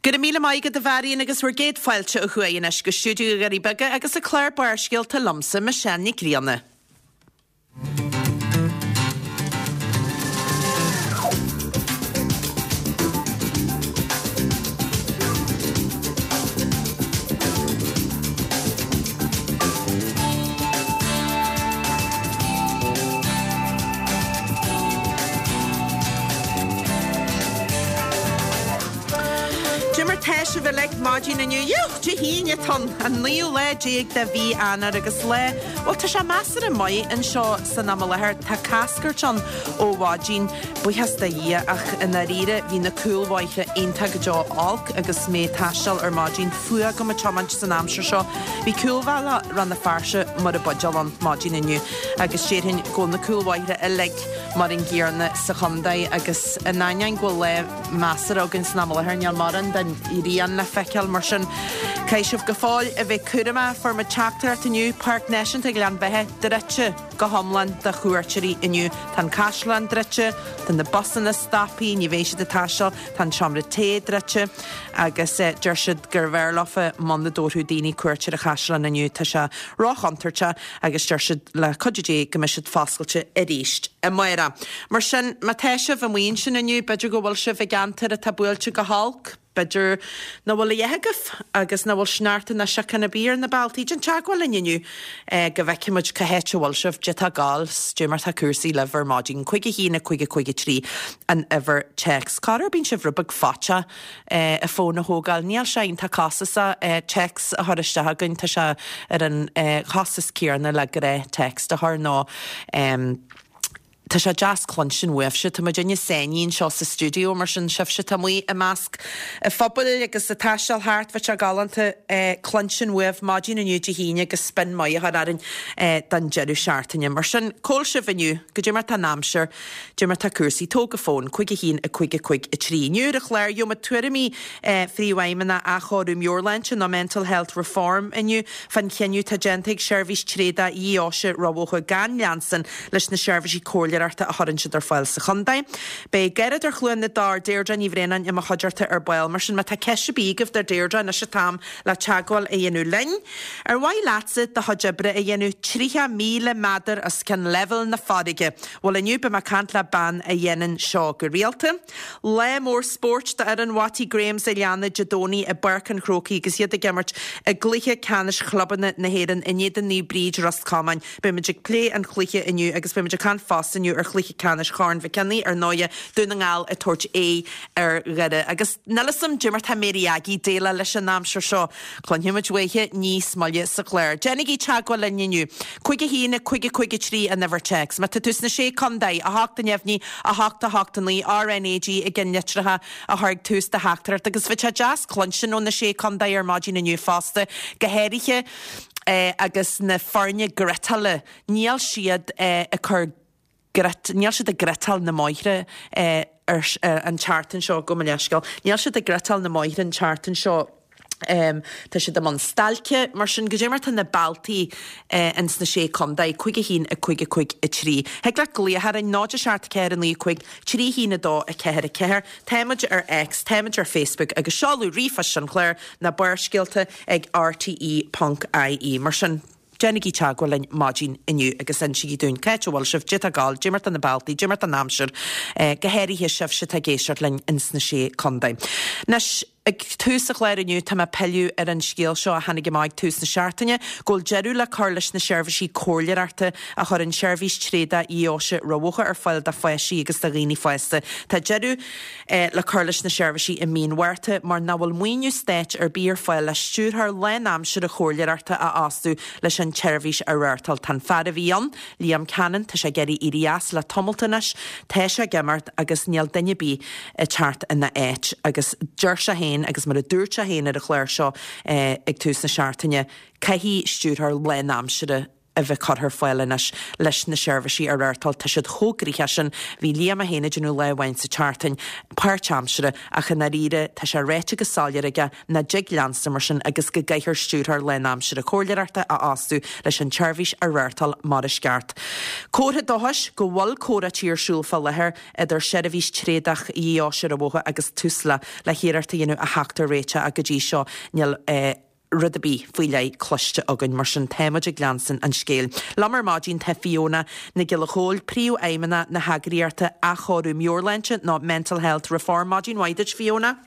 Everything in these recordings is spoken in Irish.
Go raibh míle maith agat a Mharion agus bhur gcéad fáilte ó thuaidh anois go stiúideo na nDoirí Beaga agus an clár Barrscéalta liomsa, Michelle Nic Grianna. Cad é mar tá sibh uilig maidin inniu. Yúch! Dé hAoine atá ann, an naoú lá déag de mhí Eanáir agus lá, bhuel tá sé measartha maith anseo san am i láthair. Tá cascairt ann ó mhaidin, buíochas do Dhia, ach i ndáiríre bhí na cúlbhóithre iontach go deo olc agus mé ag taisteal ar maidin. Fuath agam ag tiomáint san aimsir seo. Bhí cúlbhealach Rann na Feirste mar an buidéal ann maidin inniu agus déarfainn go bhfuil na cúlbhóithre uilig mar an gcéanna sa chontae agus in ainneoin go bhfuil lá measartha againn san am i láthair níl mórán den ghrian le feiceáil mar sin caithfidh sibh go fóill a bheith cúramach. Fuair muid teachtaireacht inniu, Páirc Náisiúnta Ghleann Bheatha druidte go hiomlán do chuairteoirí inniu. Tá an caisleán druidte, tá na busanna stoptha, ní bheidh siad ag taisteal, tá an seomra tae druidte agus deir siad gurbh fhearr leofa muna dtabharfadh daoine cuairt ar an chaisleán inniu. Tá sé róchontúirteach agus deir siad le cuidiú Dé go mbeidh siad foscailte arís amárach. Mar sin, má tá sibh amuigh ansin inniu, b'fhéidir go bhfuil sibh i gceantar atá buailte go holc, b'fhéidir nach bhfuil a dhath agaibh agus nach bhfuil sneachta ná síocháin ar bith ar na bealtaí, déan teagmháil linn inniu go bhfeicfidh muid cá háit a bhfuil sibh, caidé tá ag gabháil, 's caidé mar tá cúrsaí libh ar maidin. 5 1 5 5 3 an uimhir téacs. Corruair bíonn sibh rud beag faiteach an fón a thógáil. Níl sé iontach costasach téacs a chur isteach chugainn, tá sé ar an chostas céanna le gnáth text a chur nó tá sé deas cluinstin uaibhse. Tá muidinne sáinnithe anseo sa stiúideo mar sin sibhse atá amuigh i measc an phobail agus ag taisteal thart, bheadh sé galánta cluinstin uaibh maidin inniu Dé hAoine agus spin maith a chur orainn don deireadh seachtaine. Mar sin, cá bhfuil sibh inniu? Goidé mar tá an aimsir? Dé mar tá cúrsaí. Tóg an fón, 5 1 5 5 3. Inniu ar an chlár, gheobhaimid tuairimí Phríomhfheidhmeannach Athchóiriú Meabhairshláinte nó Mental Health Reform inniu fán chinneadh atá déanta ag Seirbhís Tréadach Dheoise Ráth Bhoth gan leanstan leis na seirbhísí comhairleoireachta a chuireann siad ar fáil sa chontae. Beidh Dáireadóir Chluain na dTor, Deirdre Ní Bhraonáin i mo chuideachta ar ball. Mar sin má tá ceist ar bith agaibh do Deirdre, anois an t-am le teagmháil a dhéanamh linn. Ar mhaith leatsa do chuid oibre a dhéanamh 30,000 méadar os cionn leibhéal na farraige? Bhuel inniu beidh mé ag caint le bean a dhéanann seo go rialta. Lá mór spóirt d'fhoireann Watty Grahams a' Leanna Dé Domhnaigh i bPáirc an Chrócaigh agus iad ag imirt i gcluiche ceannais chlubanna na hÉireann in éadan Naomh Bríd, Ros Comáin. Beidh muid ag plé an chluiche inniu agus beidh muid ag caint fosta inniu ar chluiche ceannais Chorn Mhic Cionnaith, ar ndóighe, Dún na nGall ag tabhairt aghaidh ar Dhoire. Agus níl 'fhios a'm dé mar tá Mary Aggie ag déileáil leis an aimsir seo. Cluinfidh muid uaithi níos moille sa chlár. Déanaigí teagmháil linn inniu. 5 1 5 5 3 an uimhir téacs. Má tá tú sna Sé Contae, 8 neamhní, 8 8 9, RNAG i gceannlitreacha a chur ag tús do theachtaireacht. Agus bheadh sé deas cluinstin ó na Sé Contae ar maidin inniu fosta, go háirithe agus na foirne griotála, níl siad ag cur grit, níl siad ag griotáil na mbóithre ar an tseachtain seo, gabh mo leithscéal, níl siad ag griotáil na mbóithre an tseachtain seo, tá siad i mbun stailce, mar sin, goidé mar tá na bealtaí ins na Sé Contae, 5 1 5 5 3. Thig leat glaoch orainn, 0 7 4 9 5 3 1 2 4 4, táimid ar X, táimid ar Facebook agus seoladh ríomhphoist an chláir ná barrscéalta ag rte ponc ie. Mar sin. Déanaigí teagmháil linn maidin inniu agus insígí dúinn cá háit a bhfuil sibh, dé tá ag gabháil, dé mar tá na bealtaí, dé mar tá an aimsir, go háirithe sibhse atá ag éisteacht linn ins na Sé Contae. Anois, ag tús an chláir inniu tá mé ag pilleadh ar an scéal seo a tháinig amach ag tús na seachtaine, go bhfuil deireadh le cur leis na seirbhísí comhairleoireachta a chuireann Seirbhís Tréadach Dheoise Ráth Bhoth ar fáil do pháistí agus do dhaoine fásta. Tá deireadh le cur leis na seirbhísí i mí an Mhárta mar nach bhfuil maoiniú stáit ar bith ar fáil le stiúrthóir lánaimseartha comhairleoireachta a fhostú leis an tseirbhís a reáchtáil. Tá an fear a bhí ann, Liam Cannon, tá sé ag iarraidh éirí as le tamalt anois, tá sé ag imeacht agus níl duine ar bith ag teacht ina áit agus deir sé féin agus mar a dúirt sé féin ar an chlár seo ag tús na seachtaine, caithfidh stiúrthóir lánaimseartha. a bheith curtha ar fáil anois leis na seirbhísí a reáchtáil. Tá siad chomh gnoitheach sin. Bhí Liam é féin ag déanamh lá amháin sa tseachtain, páirtaimseartha, ach i ndáiríre tá sé ráite go soiléir aige nach dtig leanstan mar sin agus go gcaithfear stiúrthóir lánaimseartha comhairleoireachta a fhostú leis an tseirbhís a reáchtáil mar is ceart. Comhartha dóchais go bhfuil comhráití ar siúl fá láthair idir Seirbhís Tréadach Dheoise Rinn an Bhóthair agus Tusla le hiarracht a dhéanamh a theacht ar réiteach ach go dtí seo níl rud ar bith faoi leith cloiste againn, mar sin táimid ag leanstan an scéil. Liom ar maidin tá Fiona Nic Giolla Chóill, Príomhfheidhmeannach na heagraíochta Athchóiriú Meabhairshláinte nó Mental Health Reform. Maidin mhaith duit Fiona.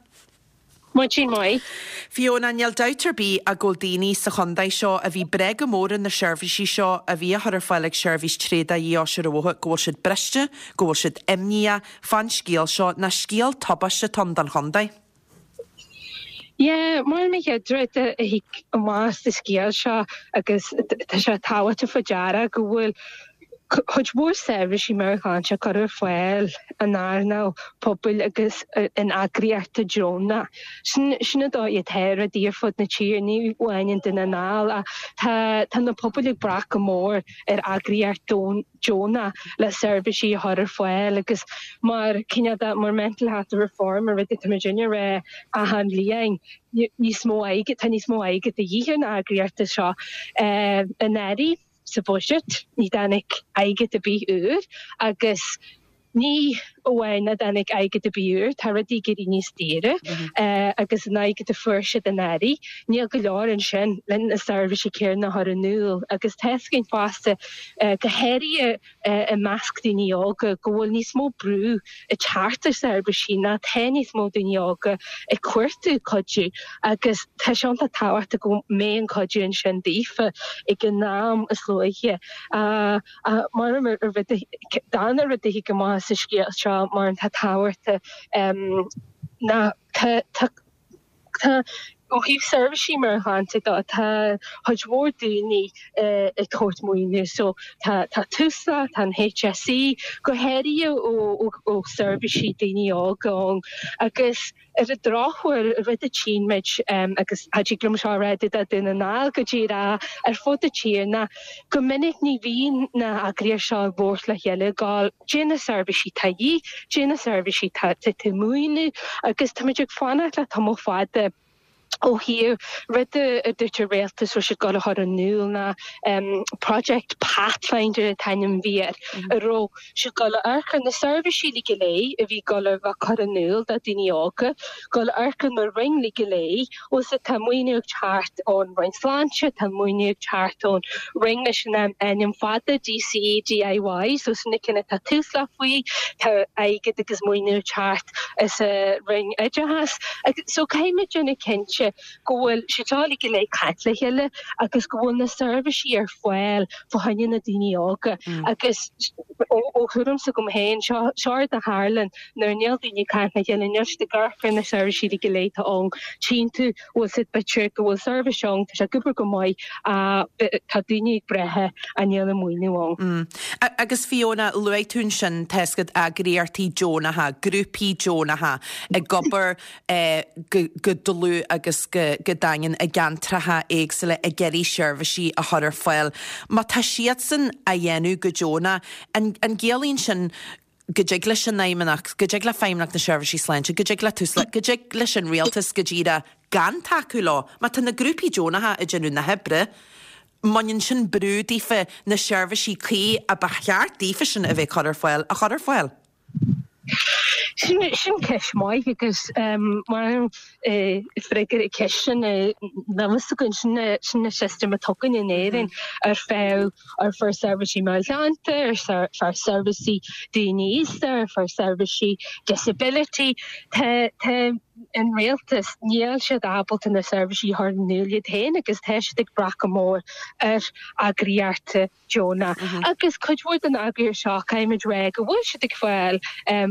Maidin mhaith. Fiona, níl dabht ar bith ach go bhfuil daoine sa chontae seo a bhí ag brath go mór ar na seirbhísí seo a bhí á chur ar fáil ag Seirbhís Tréadach Dheoise Rinn an Bhóthair, go bhfuil siad briste, go bhfuil siad imníoch fán scéal seo, nó scéal tubaiste atá ann don chontae. Yeah, mar an chéad rud a thig amach as an scéal seo agus tá sé tábhachtach faoi deara go bhfuil cuid mhór seirbhísí meabhairshláinte á cur ar fáil in earnáil pobail agus in eagraíochtaí deonacha. Sin sin an dóigh atá rudaí ar fud na tíre, ní amháin i nDún na nGall ach tá tá na pobail ag brath go mór ar eagraíocht deonach le seirbhísí a chur ar fáil agus mar cineál de mar Mental Health Reform an rud atá muid ag rá achan bhliain níos mó airgid tá níos mó airgid de dhíth ar na eagraíochtaí seo anuraidh. Sa bhuiséad, ní dtáinig airgead ar bith úr agus ní amháin nach dtáinig airgead ar bith úr, tá rudaí ag éirí níos daoire agus an airgead a fuair siad anuraidh, níl go leor ansin le na seirbhísí céanna a chur in iúl agus tá a fhios againn fosta, go háirithe i measc daoine óga, go bhfuil níos mó brú ag teacht ar seirbhísí ná tá níos mó daoine óga ag cuartú cuidiú agus tá sé iontach tábhachtach go mbeidh an cuidiú ansin daofa ag an am is luaithe. Mar an rud, darna rud a thig amach as an scéal seo mar atá tábhachtach ná tá tá Tá, ó thaobh seirbhísí meabhairshláinte de, tá cuid mhór daoine ag tabhairt maoiniú. So tá tá Tusla, tá an HSE, go háirithe ó ó seirbhísí daoine óga ann. Agus ar an drochuair, rud a tchíonn muid, agus cha dtig liom seo a rá do Dhún na nGall go díreach, ar fud na tíre ná go minic ní bhíonn na heagraíochtaí seo ag labhairt le chéile ag gabháil Dé na seirbhísí tá de dhíth, dé na seirbhísí tá tú maoiniú agus táimid ag fanacht le tamall fada ó thaobh rud a dúirt an rialtas raibh siad ag gabháil a chur in iúl ná Project Pathfinder an t-ainm a bhí air, a raibh siad ag gabháil a amharc ar na seirbhísí uilig go léir a bhí ag gabháil a bheith curtha in iúl do daoine óga, gabháil a amharc ar na roinn uilig go léir Bhfuil 's tá maoiniú ag teacht ón Roinn Sláinte, tá maoiniú ag teacht ón Roinn leis an ainm fada, DCEDIY, so sin na cinn atá Tusla faoi, tá airgead agus maoiniú ag teacht as an Roinn Oideachais. So caithfidh muid déanamh cinnte go bhfuil siad seo uilig go léir ag caint le chéile agus go bhfuil na seirbhísí ar fáil fá choinne na daoine óga agus ó thuairim s'agam féin, seo rud a tharlann Nuair níl daoine ag caint le chéile, níl siad ag amharc ar na seirbhísí uilig go léir atá ann. Tchíonn tú, bhfuil 's a'd, b'fhéidir go bhfuil seirbhís ann, tá sé ag obair go maith, tá daoine ag brath ach níl an maoiniú ann. Agus Fiona, luaigh tú ansin, tá 's agat eagraíochtaí deonacha, grúpaí deonacha ag obair go dlúth agus go daingean i gceantracha éagsúla ag iarraidh seirbhísí a chur ar fáil. Má tá siadsan á dhéanamh go deonach, an gciallaíonn sin go dtig leis an Fheidhmeannacht, go dtig le Feidhmeannacht na Seirbhísí Sláinte, go dtig le Tusla, go dtig leis an Rialtas go díreach gan tacú leo. Má tá na grúpaí deonacha ag déanamh na hoibre, mbaineann sin brú daofa na seirbhísí cuí a ba cheart daofa sin a bheith cur ar fáil a chur ar fáil. Sin ceist mhaith agus mar freagra ar an cheist sin níl a fhios againn, sin an system atá againn in Éirinn ar feadh ar feadh seirbhísí meabhairshláinte, ar feadh seirbhísí daoine aosta, ar feadh seirbhísí disability. Tá tá an rialtas, níl siad ábalta na seirbhísí a chur in iúl iad féin agus tá siad ag brath go mór ar eagraíochtaí deonach. Agus cuid mhór den eagraíocht seo, caithfimid rá go bhfuil siad ag fáil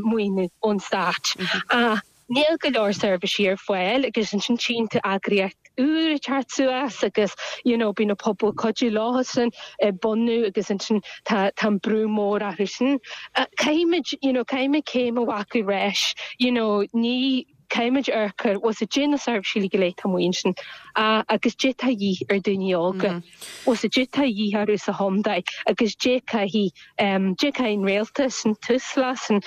maoiniú ón stát. Ach níl go leor seirbhísí ar fáil agus ansin tchíonn tú eagraíocht úr ag teacht suas agus you know bíonn an pobal ag cuidiú leosan ag bunú agus ansin tá tá an brú mór orthu sin. Caithfimid you know caithfimid céim a ghlacadh ar ais you know ní. Caithfimid amharc ar bhfuil 's a'd na seirbhísí go léir atá amuigh ansin agus dé tá a dhíth ar daoine óga, bhfuil 's a'd dé tá a dhíth orthu sa chontae agus dé caithfidh dé caithfidh an rialtas, an Tusla, san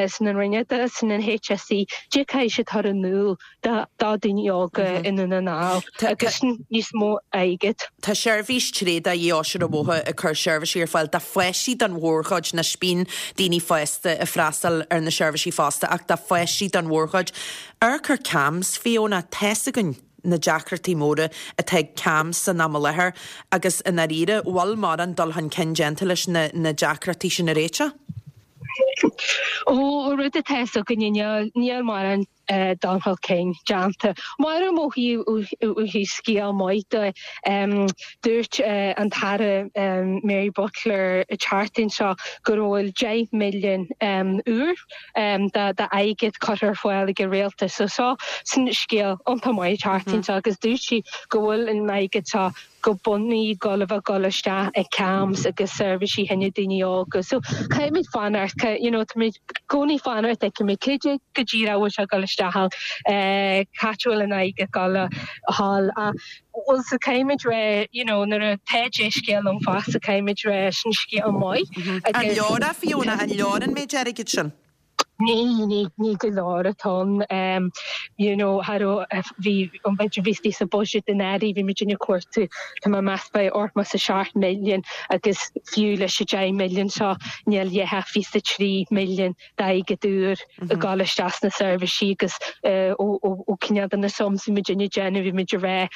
san an Roinn Oideachais, san an HSE, dé caithfidh siad chur in iúl do daoine óga i nDún na nGall agus níos mó airgid. Tá seirbhís tréada Dhífhostaithe Mhothaithe ag cur seirbhísí ar fáil do pháistí don mhórchuid, anois bíonn daoine fásta ag freastal ar na seirbhísí fosta ach do pháistí don mhórchuid. Amharc ar CAMHS, Fiona, tá's againn na deacrachtaí móra atá ag CAMHS san am i láthair agus i ndáiríre, bhfuil mórán dul chun cinn déanta leis na deacrachtaí sin a réiteach? Ó, rud atá 'fhios againne, níl mórán dul chun cinn déanta. Mar ó thaobh scéal maith de, dúirt an tAire Mary Butler an tseachtain seo go bhfuil 10 milliún úr d'airgead curtha ar fáil ag an rialtas. So seo sin scéal iontach maith an tseachtain seo agus dúirt sí go bhfuil an airgead seo go bunúsach gul a bheith gul isteach i CAMHS agus seirbhísí fá choinne daoine óga. So caithfimid fanacht, you know, táimid i gcónaí fanacht, feicfimid cad é go díreach a bhfuil sé gul isteach ann, cá háit a bhfuil an airgead gul a dhul ach bhuel so caithfimid rá, you know, nuair atá dea-scéal ann fosta caithfimid rá sin scéal maith agus. An leor é Fiona, an leor an méid airgid sin? Ní, ní, ní go leor atá ann. You know, cha raibh, bhí, an b'fhéidir bhí sa budget anuraidh, bhí muid ag cuartú, tá mé ag meas b'fhéidir 87 milliún agus fiú leis an 10 milliún seo níl a dhath ach 23 milliún d'airgead úr ag dul isteach sna seirbhísí agus ó, ó, ó cineál de na sums bhí muid ag déanamh, bhí muid ag rá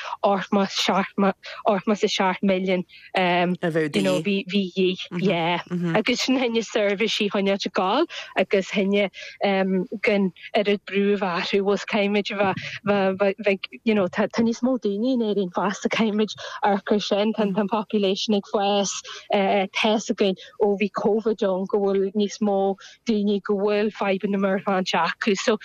87 milliún. A bheadh de dhíth. Bhí de dhíth, yeah. Agus sin fá choinne seirbhísí a choinneáilt ag gabháil agus fá choinne gan oiread brú a bheith orthu, bhfuil caithfimid a bheith, bheith, you know, tá níos mó daoine in Éirinn fosta, caithfimid amharc ar sin, tá an population ag fás, tá 'fhios againn ó bhí Covid ann go bhfuil níos mó daoine go bhfuil fadhbanna meabhairshláinte acu. So,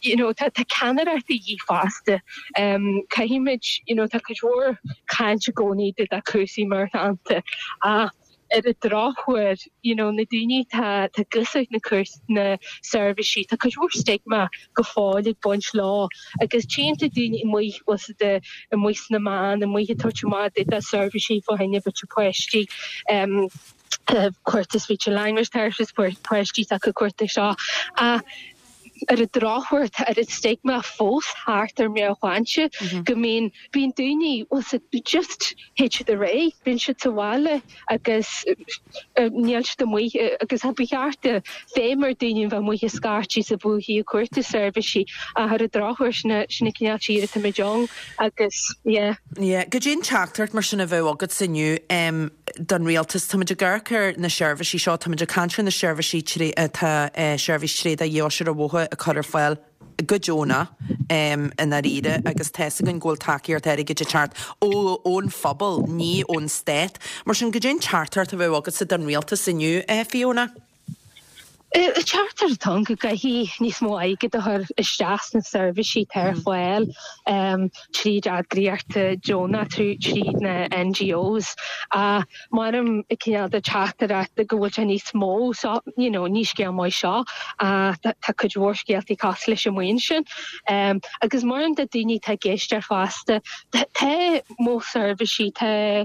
you know, tá tá ceannaireacht de dhíth fosta. Um, caithfimid, you know, tá cuid mhór caint i gcónaí de de cúrsaí meabhairshláinte ach ar an drochuair, you know, na daoine tá tá ag úsáid na cúrs na seirbhísí, tá cuid mhór stigma go fóill ag baint leo agus tchíonn tú daoine amuigh bhfuil siad amuigh sna meáin, amuigh ag tabhairt amach de de seirbhísí fá choinne b'fhéidir páistí. Um, cuartú speech and language therapist, páistí s'acu cuartú seo. Ach ar an drochuair tá oiread stigma fós thart ar meabhairshláinte go mbíonn, bíonn daoine, bhfuil 's a'd, just théid siad ar aghaidh, bíonn siad sa bhaile agus níl siad amuigh agus ba cheart feidhm ar daoine a bheith amuigh ag scaití sa bhfúithi ag cuartú seirbhísí ach ar an drochuair sin sin an cineál tír atáimid ann agus yeah. Yeah. Goidé an teachtaireacht mar sin a bheadh agatsa inniu don rialtas? Táimid ag amharc ar na seirbhísí seo, táimid ag caint ar na seirbhísí atá Seirbhís Tréada Dhífhostaithe Mhothaithe ag cur ar fáil go deonach i ndáiríre agus tá's againn go bhfuil tacaíocht airgid ag teacht ón phobal, ní ón stát. Mar sin, goidé an teachtaireacht a bheadh agatsa don rialtas inniu, Fiona? Teachtaireacht atá ann go gcaithfidh níos mó airgid a chur isteach sna seirbhísí atá ar fáil tríd eagraíochtaí deonacha, tríd na NGOs. Ach mairim cineál de teachtaireacht go bhfuil sé níos mó so, you know, ní scéal maith seo ach tá cuid mhór scéaltaí cosúil leis amuigh ansin. Agus mairim do daoine atá ag éisteacht fosta, tá modh seirbhísí, tá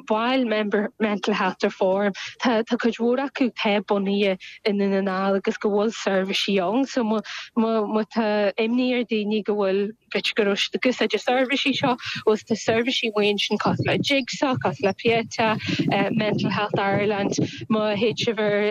baill member Mental Health Reform, tá tá cuid mhór acu atá bunaithe i nDún na nGall agus go bhfuil seirbhísí ann so má má má tá imní ar daoine go bhfuil b'fhéidir go raibh siad ag úsáid na seirbhísí seo agus tá seirbhísí amuigh ansin cosúil le Jigsaw, cosúil le Pieta, Mental Health Ireland, má théid sibh ar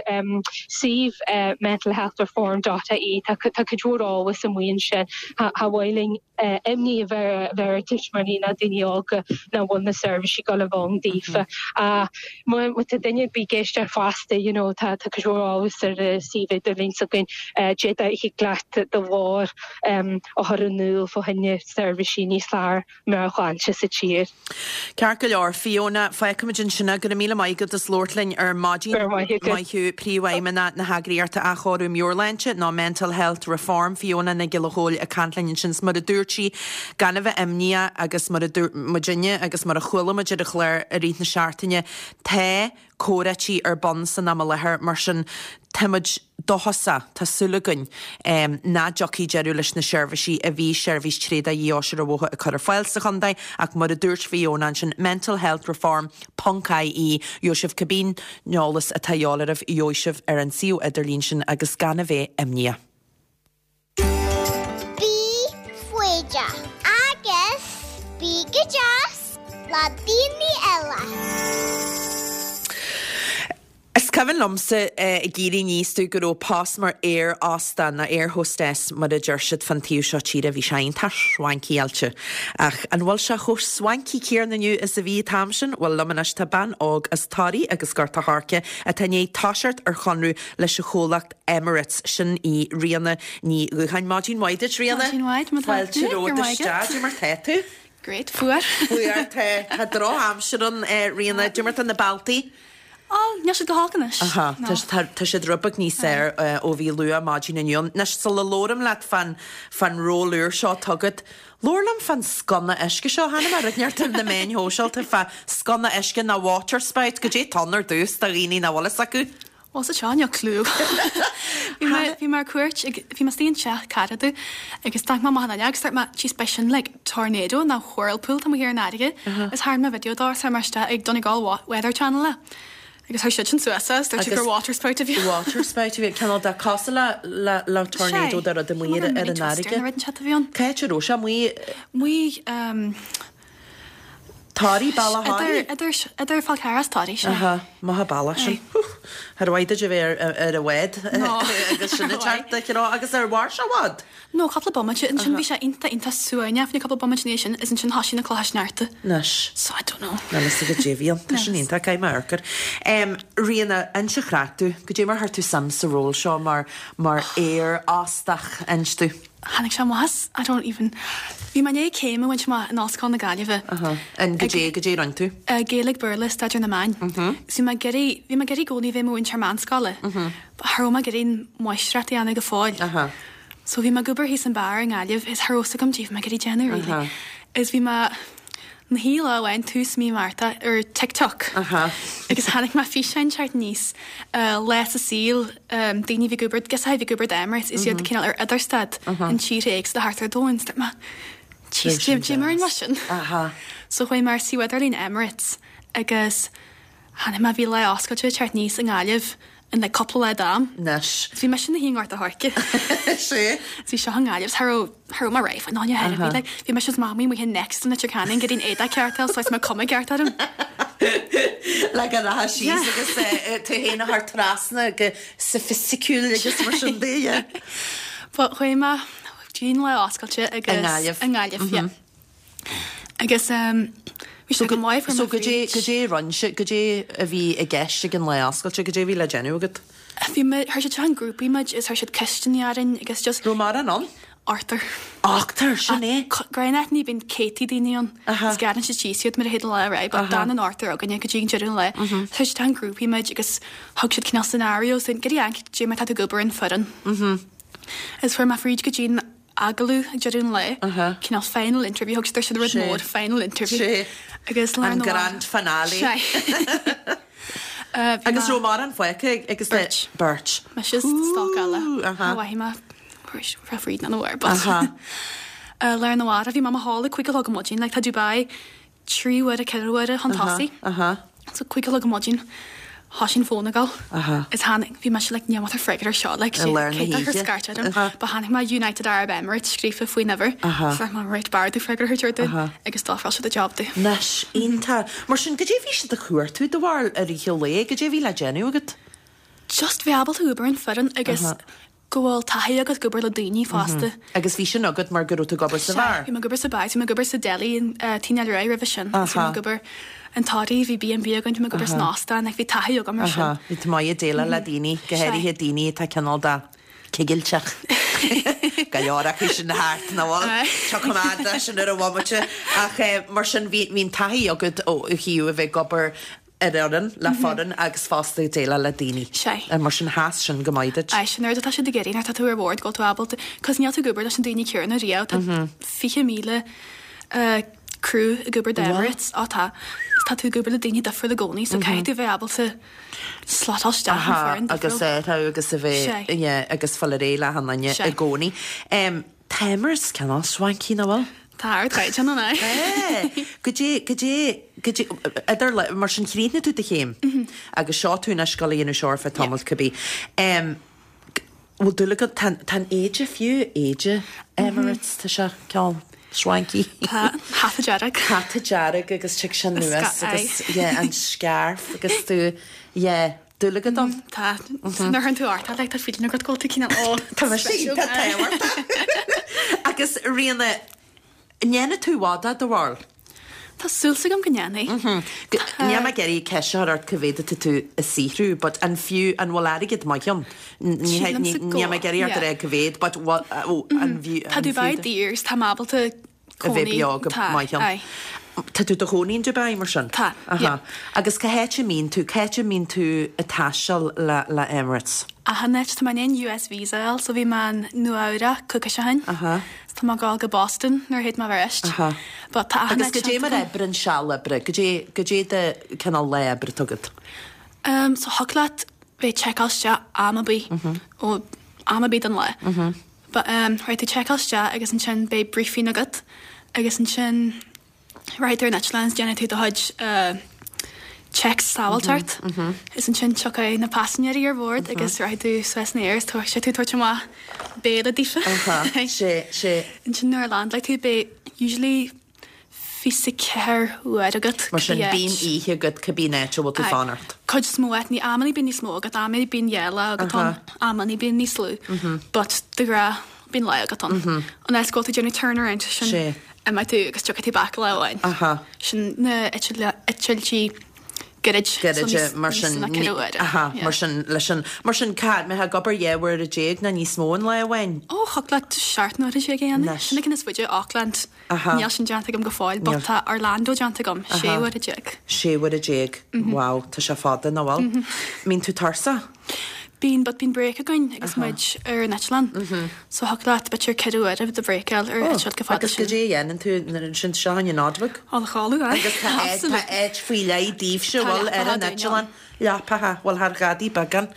suíomh mentalhealthreform dot ie tá tá cuid mhór eolas amuigh ansin cha cha mhaith linn imní a bheith ar tuismitheoirí ná daoine óga nach bhfuil na seirbhísí ag dul a bheith ann daofa. Ach má tá duine ar bith ag éisteacht fosta, you know, tá cuid mhór eolas ar an suíomh idirlín s'againn, d'fhéadfá thig leat do ghlór a chur in iúl fá choinne seirbhísí níos fearr meabhairshláinte sa tír. Ceart go leor, Fiona, fágfaimid ansin é. Go raibh míle maith agat as labhairt linn ar maidin. Go raibh maith agat. Maith thú, Príomhfheidhmeannach na heagraíochta Athchóiriú Meabhairshláinte, nó Mental Health Reform, Fiona Nic Giolla Chóill ag caint linn ansin. 'S mar a dúirt sí, gan a bheith imníoch agus mar a dúirt muidinne agus mar a chuala muid ar an chlár i rith na seachtaine, tá. comhráití ar bun san am i láthair, mar sin táimid dóchasach, tá súil againn, nach dtiocfaidh deireadh leis na seirbhísí a bhí Seirbhís Tréadach Dhí-Fheois ar an Bhóthar ag cur ar fáil sa chontae ach mar a dúirt Fiona ansin, mentalhealthreform ponc ie, gheobhaidh sibh cibé eolas atá a dhíobháil oraibh, gheobhaidh sibh ar an suíomh idirlín sin agus gan a bheith imníoch. Bí foighdeach agus bí go deas le daoine eile. Is cuimhin liomsa ag éirí aníos domh go raibh post mar aer óstán nó air hostess mar a deir siad fán taobh seo tíre, bhí sé iontach swanky-áilte. Ach an bhfuil sé chomh swanky céanna inniu is a bhí an t-am sin? Bhuel liom anois tá bean óg as Toraigh agus Gort a' Choirce atá i ndiaidh toiseacht ar chonradh leis an chomhlacht Emirates. Sin í Ríona Ní Dhúcháin. Maidin mhaith duit, Ríona. Maidin mhaith, má tá Fáilte tú. romhat isteach. Cad é mar tá tú? Great, fuar. Fuar, tá, tá drochaimsir ann, Ríona. Cad é mar tá na bealtaí? Ó, níl siad go holc anois. Aha, No. tá, tá siad rud beag níos fearr ó bhí luath maidin inniu ann. Anois, sula labhraim leat fán, fán ról úr seo atá agat, labhair liom fán sconna uisce seo. Chonaic mé rud inteacht ar na meáin shóisialta fá sconna uisce nó water spout. Goidé atá ann ar dtús do dhaoine nach bhfuil fhios acu. Bhuel sa seo níl clue agam. Bhí mé bhí mé ar cuairt ag bhí mé istigh in teach cara domh agus d'amharc mé amach an fhuinneog agus dúirt mé jeez beidh sin like tornado nó whirlpool tá muid thiar in fharraige agus tharraing mé video dó agus chuir mé isteach ag Donegal Weather Channel é agus chuir siad sin suas é agus dúirt siad gur water spout a bhí ann. Water spout a bhí ann, cineál de cosúil le le le tornado de rud amuigh ar ar an fharraige. Nó rud inteacht a bhí ann. Cá háit a raibh sé amuigh? Amuigh ehm. Toraigh, Bealach Thoraí? Idir, idir Fál Carrach is Toraigh, sea. Aha, maith an bealach sin. Char mhaith duit a bheith ar, ar an bhád agus sin ag teacht de chró. Agus ar mhair sé i bhfad? No, cúpla bomaite. Ansin bhí sé iontach, iontach suaimhneach fá choinne cúpla bomaite ina dhiaidh sin is ansin thoisigh na clocha sneachta. Anois. So I don't know. Níl fhios agat goidé a bhí ann. Tá sin iontach, caithfidh mé amharc air. Ríona, inis an chraic domh. Goidé mar chuir tú suim sa ról seo mar, mar aer óstach, inis domh. Tháinig sé amach as, I don't even, bhí mé i ndiaidh céim a bhaint amach in Ollscoil na Gaillimhe. Aha. And goidé, goidé a rinne tú? Gaeilge, Béarla, Staidéar na Meán. Is bhí mé ag iarraidh, bhí mé ag iarraidh i gcónaí bheith i mo mhúinteoir meánscoile. But cha raibh mé ag iarraidh an mháistreacht a dhéanamh go fóill. Aha. So bhí mé ag obair thíos an beár i nGaillimh is cha raibh fhios agam goidé bhí mé ag iarraidh déanamh really. Aha. Is bhí mé, na shuí lá amháin tús mí Márta ar TikTok agus chonaic mé físeán teacht aníos lá sa saol daoine a bhí ag obair girseachaí a bhí ag obair d'Emirates is iad cineál ar idirstad in tíortha éagsúla thart ar domhan. Dúirt mé Jeez, goidé mar mar sin. So chuaigh mé ar suíomh idirlín Emirates agus chonaic mé bhí lá oscailte ag teacht aníos i nGaillimh in like cúpla lá d'am. Anois. Bhí mise ina shuí i nGort a' Choirce. Sea. Bhí seo i nGaillimh, cha raibh, cha raibh mé réidh faoin áine ar bith. Like, bhí mise is Mamaí amuigh in Next in Leitir Ceanainn ag iarraidh an éadach ceart a fháil so is mé cuma ceart orm. Le go rachfá síos agus tú féin a chur trasna go soifisticiúil agus mar sin de, yeah. But chuaigh mé go dtí an lá oscailte agus. I nGaillimh. I nGaillimh, yeah. Agus bhí sé go maith So goidé, goidé a rinne sibh, goidé a bhí i gceist ag an lá oscailte, goidé a bhí le déanamh agat? Bhí mé, chuir siad isteach in grúpaí muid is chuir siad ceisteanna orainn agus just. Raibh mórán ann? Ochtar. Ochtar, sin é. Gnách ní bhíonn céadtaí daoine ann is gearrann siad síos iad mar a théid an lá ar aghaidh but d'fhan an ochtar againne go dtí an deireadh an lae. Chuir siad isteach in grúpaí muid agus thug siad cineál scenarios dúinn, goidé an, goidé mar tá tú ag obair in foireann. Is fuair mé fríd go dtí an agallamh ag deireadh an lae, cineál final interview, thug siad air sin rud mór, final interview. Sé. Agus lá An na grand finale. Sé. Agus raibh mórán fágtha agus Beirt. Beirt. Mise is stoc eile. Mhaithfidh mé raibh fríd an uair, but. Lá arna mhárach bhí mé i mo chodladh ag 5 a chlog ar maidin, like tá Dubai 3 huaire, 4 huaire chun tosaigh. So 5 a chlog ar maidin, thoisigh an fón ag gabháil. Is tháinig, bhí mise like níl mé ag freagairt air seo, like I lár na cé tá ag cur hoíche. scairt orm. But chonaic mé United Arab Emirates scríofa faoin uimhir. So dúirt mé right b'fhearr domh freagra a thabhairt orthu agus d'ofráil siad an job domh. Anois, iontach. Mar sin, goidé a bhí siad a chuartú do bharúil i rith an lae? Goidé a bhí le déanamh agat? Just bheith ábalta obair in foireann agus go bhfuil taithí agat ag obair le daoine fosta. Agus bhí sin agat mar go raibh tú ag obair sa bheár? Sea, bhí mé ag obair sa bheár, bhí mé ag obair sa deli in Tigh Neil Ruaidh roimhe sin. Bhí mé ag obair in Toraigh, bhí B&B againn, bhí mé ag obair san óstán, like bhí taithí agam ar sin. Bhí tú maith ag déileáil le daoine, go háirithe daoine atá cineál de cigilteach. Go leor acu sin thart, nach bhfuil? Tiocfaidh mé de sin ar an bhomaite. Ach mar sin, bhí an taithí agat ó thaobh a bheith ag obair ar fhoireann, le foireann agus fosta ag déileáil le daoine. Sea. Mar sin sheas sin go maith duit. Aye, sin an rud atá siad ag iarraidh nuair atá tú ar bhord, go bhfuil tú ábalta, cos níl tú ag obair leis na daoine céanna riamh, tá 20,000 eh. crew ag obair d'Emirates. Á tá. Is tá tú ag obair le daoine difriúla i gcónaí so caithfidh tú bheith ábalta slotáil isteach in foireann difriúil. Agus athrú agus a bheith, yeah, agus fáil ar aghaidh le achan duine i gcónaí. Tá Emirates cineál swanky, nach bhfuil? Tá ardchaighdeán ann, aye. Tá. Goidé, goidé, goidé, idir, mar sin chríochnaigh tú do chéim agus seo tú anois ag gabháil a dhéanamh seo ar feadh tamaill cibé. Bhfuil dúil agat, tá, tá an éide fiú, éide Emirates, tá sé cineál swanky. Tá, hata dearg. Hata dearg agus tig sé anuas agus, yeah, an scarf agus tú, yeah. Dúil agat ann? Tá. Nuair a chuireann tú ort é, like, tá feeling agat go bhfuil tú cineál, oh, Tá mé sin, tá tábhachtach. Agus Ríona, an ndéanfaidh tú i bhfad é, do bharúil? Tá súil agam go ndéanfaidh. Níl mé ag iarraidh ceist a chur ort cá mhéad atá tú ag saothrú, but an fiú, an bhfuil airgead maith ann? Sílimse go Níl mé ag iarraidh ort a rá cá mhéad, but an fiú, Tá Dubai daor, so tá mé ábalta a bheith beo go maith ann. Aye. Tá tú i do chónaí in Dubai, mar sin? Tá, yeah. Agus cá háit a mbíonn tú, cá háit a mbíonn tú ag taisteal le, le Emirates? Achan áit, tá mé i ndiaidh US visa a fháil, so bhí mé in Nua Eabhrac coicís ó shin. Aha. So tá mé ag gabháil go Boston nuair a théid mé arís. Aha. But tá achan Agus áit goidé déanta mar agam. oibreann seal oibre, goidé, goidé de cineál lá oibre atá agat? Um, so thig leat bheith checkáil isteach am ar bith, ó am ar bith den lá. But ehm rachaidh tú checkáil isteach agus ansin beidh briefing agat agus ansin rachaidh tú ar an eitleán is déanfaidh tú do chuid eh checks sábháilteacht is ansin tiocfaidh na paisinéirí ar bhord agus rachaidh tú suas san aer is tabharfaidh sé tú tabhairt amach béile daofa. Sé, sé. Ansin nuair a landláilfidh tú beidh usually 24 uair agat Mar sin, bíonn oíche agat cibé áit a bhfuil tú fanacht. Cuid is mó áit, ní amannaí bíonn níos mó agat, amannaí bíonn dhá lá agat ann, amannaí bíonn níos lú. But de ghnáth bíonn lá agat ann. An áit go bhfuil tú ag déanamh turnaround, sin imeoidh tú agus tiocfaidh tú back lá amháin. Sin na eitiltí gairid. Gairide, mar sin, aha, mar sin, leis an, mar sin, cá, mbeifeá ag obair 12 uaire nó níos mó in lá amháin? Ó, thiocfadh leat 17 n-uaire a dhéanamh. Sin an ceann is faide, Auckland. Aha. Níl sin déanta agam go fóill, but tá Orlando déanta agam, 16 uaire. 16 uaire, wow, tá sé fada, nach bhfuil? Mbíonn tú tuirseach? Bíonn, but bíonn break againn agus muid ar an eitleán. So thiocfadh leat b'fhéidir 4 uaire de bhreak a fháil ar eitilt chomh fada Agus sin. goidé a dhéanann tú nuair sin seo an Nodwig? Dul a chodladh, aye. Agus tá áit, tá áit faoi leith daoibhse, Tá bhfuil, ar leapacha an dúinn eitleán. ann. Leapacha, bhuel thar ghadaí beagán.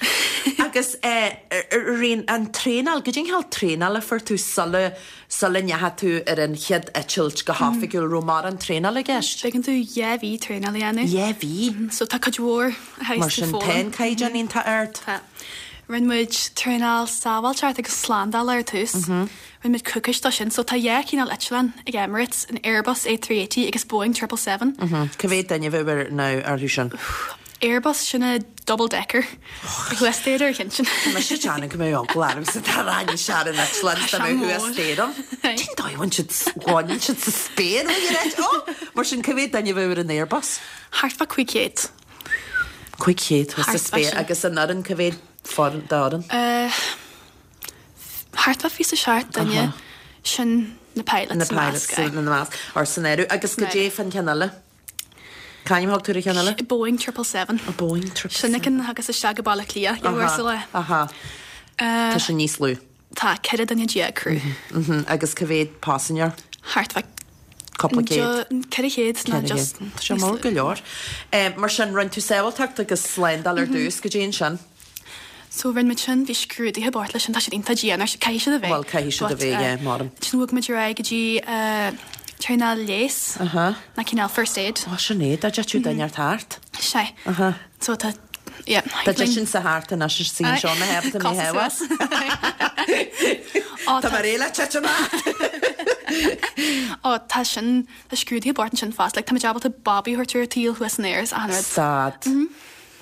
Agus eh, Ríona, an traenáil, goidé an cineál traenála a fuair tú sula, sula ndeachaigh tú ar an chéad eitilt go hoifigiúil, raibh mórán traenála i gceist? Bíonn tú dhá mhí traenáil a dhéanamh. Dhá mhí? So tá cuid mhór a Mar théas tú sin, tá foghlaim. an caighdeán iontach ard. Tá. Rinne muid traenáil sábháilteacht agus slándála ar tús. Rinne muid coicís dó sin. So tá dhá chineál eitleán ag Emirates, an Airbus A380 agus Boeing 777. Cá mhéad duine a bheadh ar, nó orthu sin? Airbus, sin an double decker. Thuas staighre ar cheann sin. Tá mise ag déanamh go mbeadh eagla ormsa dá rachainnse ar an eitleán dá mbeadh thuas staighre ann. Cén dóigh a bhfuil siad, bhaineann siad sa spéir ó dhíreach? Ó! Mar sin, cá mhéad duine a bheadh ar an Airbus? Thart fá 500. 500 thuas sa Thart fá spéir sin. agus an fhoireann, cá mhéad foireann, d'fhoireann? Thart fá 27 duine, sin na pilots Na sa pilots measc, aye. ina measc, or san áireamh. Agus goidé fán cheann eile? C'ainm a thug tú ar an cheann eile? Boeing 777. A Boeing 777. Sin an ceann a thagas isteach go Baile Átha Cliath, dhá uair sa lá. Aha. Tá sé níos lú. Tá, 14 duine crew. Agus cá mhéad paisinéir? Thart fá Cúpla céad. 400 nó just Tá sé mór go leor. Mar sin, rinne tú sábháilteacht agus slándáil ar dtús, goidé ansin? So rinne muid sin, bhí scrúduithe ag baint leis sin, tá siad iontach dian, caithfidh siad a bheith. Bhuel, caithfidh siad a bheith, yeah, maram. Ansin bhog muid ar aghaidh go dtí traenáil leighis, ná cineál first aid. Ó, sin é, dá dtitfeadh duine ort thart. Sea. So tá, yeah. Dá dtitfinn thart anois is í seo na héabta mé thabhas. Tá mé réidh le titim ort! Ó, tá sin, tá scrúduithe ag baint ansin fosta, like tá muid ábalta babaí a thabhairt ar an tsaol thuas san aer is achan rud. Stad.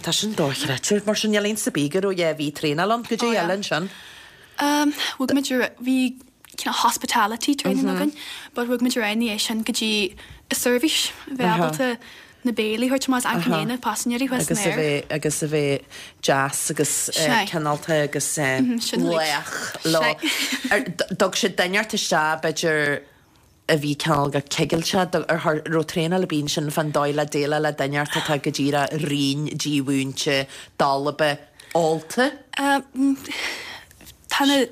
Tá sin dochreidte. Mar sin, níl aon sa bith go raibh dhá mhí traenáil ann. Goidé eile ansin? Bhog muid ar, bhí cineál hospitality training againn, but bhog muid ar aghaidh ina dhiaidh sin go dtí an seirbhís, bheith ábalta na béilí a thabhairt amach is achan duine, paisinéirí thuas san Agus a aer. bheith, agus a bheith deas agus cineálta agus lách leo. Thug siad duine ort isteach b'fhéidir a bhí cineál go cigilte, ar raibh traenáil ar bith ansin fán dóigh le déileáil le duine ort atá go díreach righin, dímhúinte, dalba, ólta? Tá na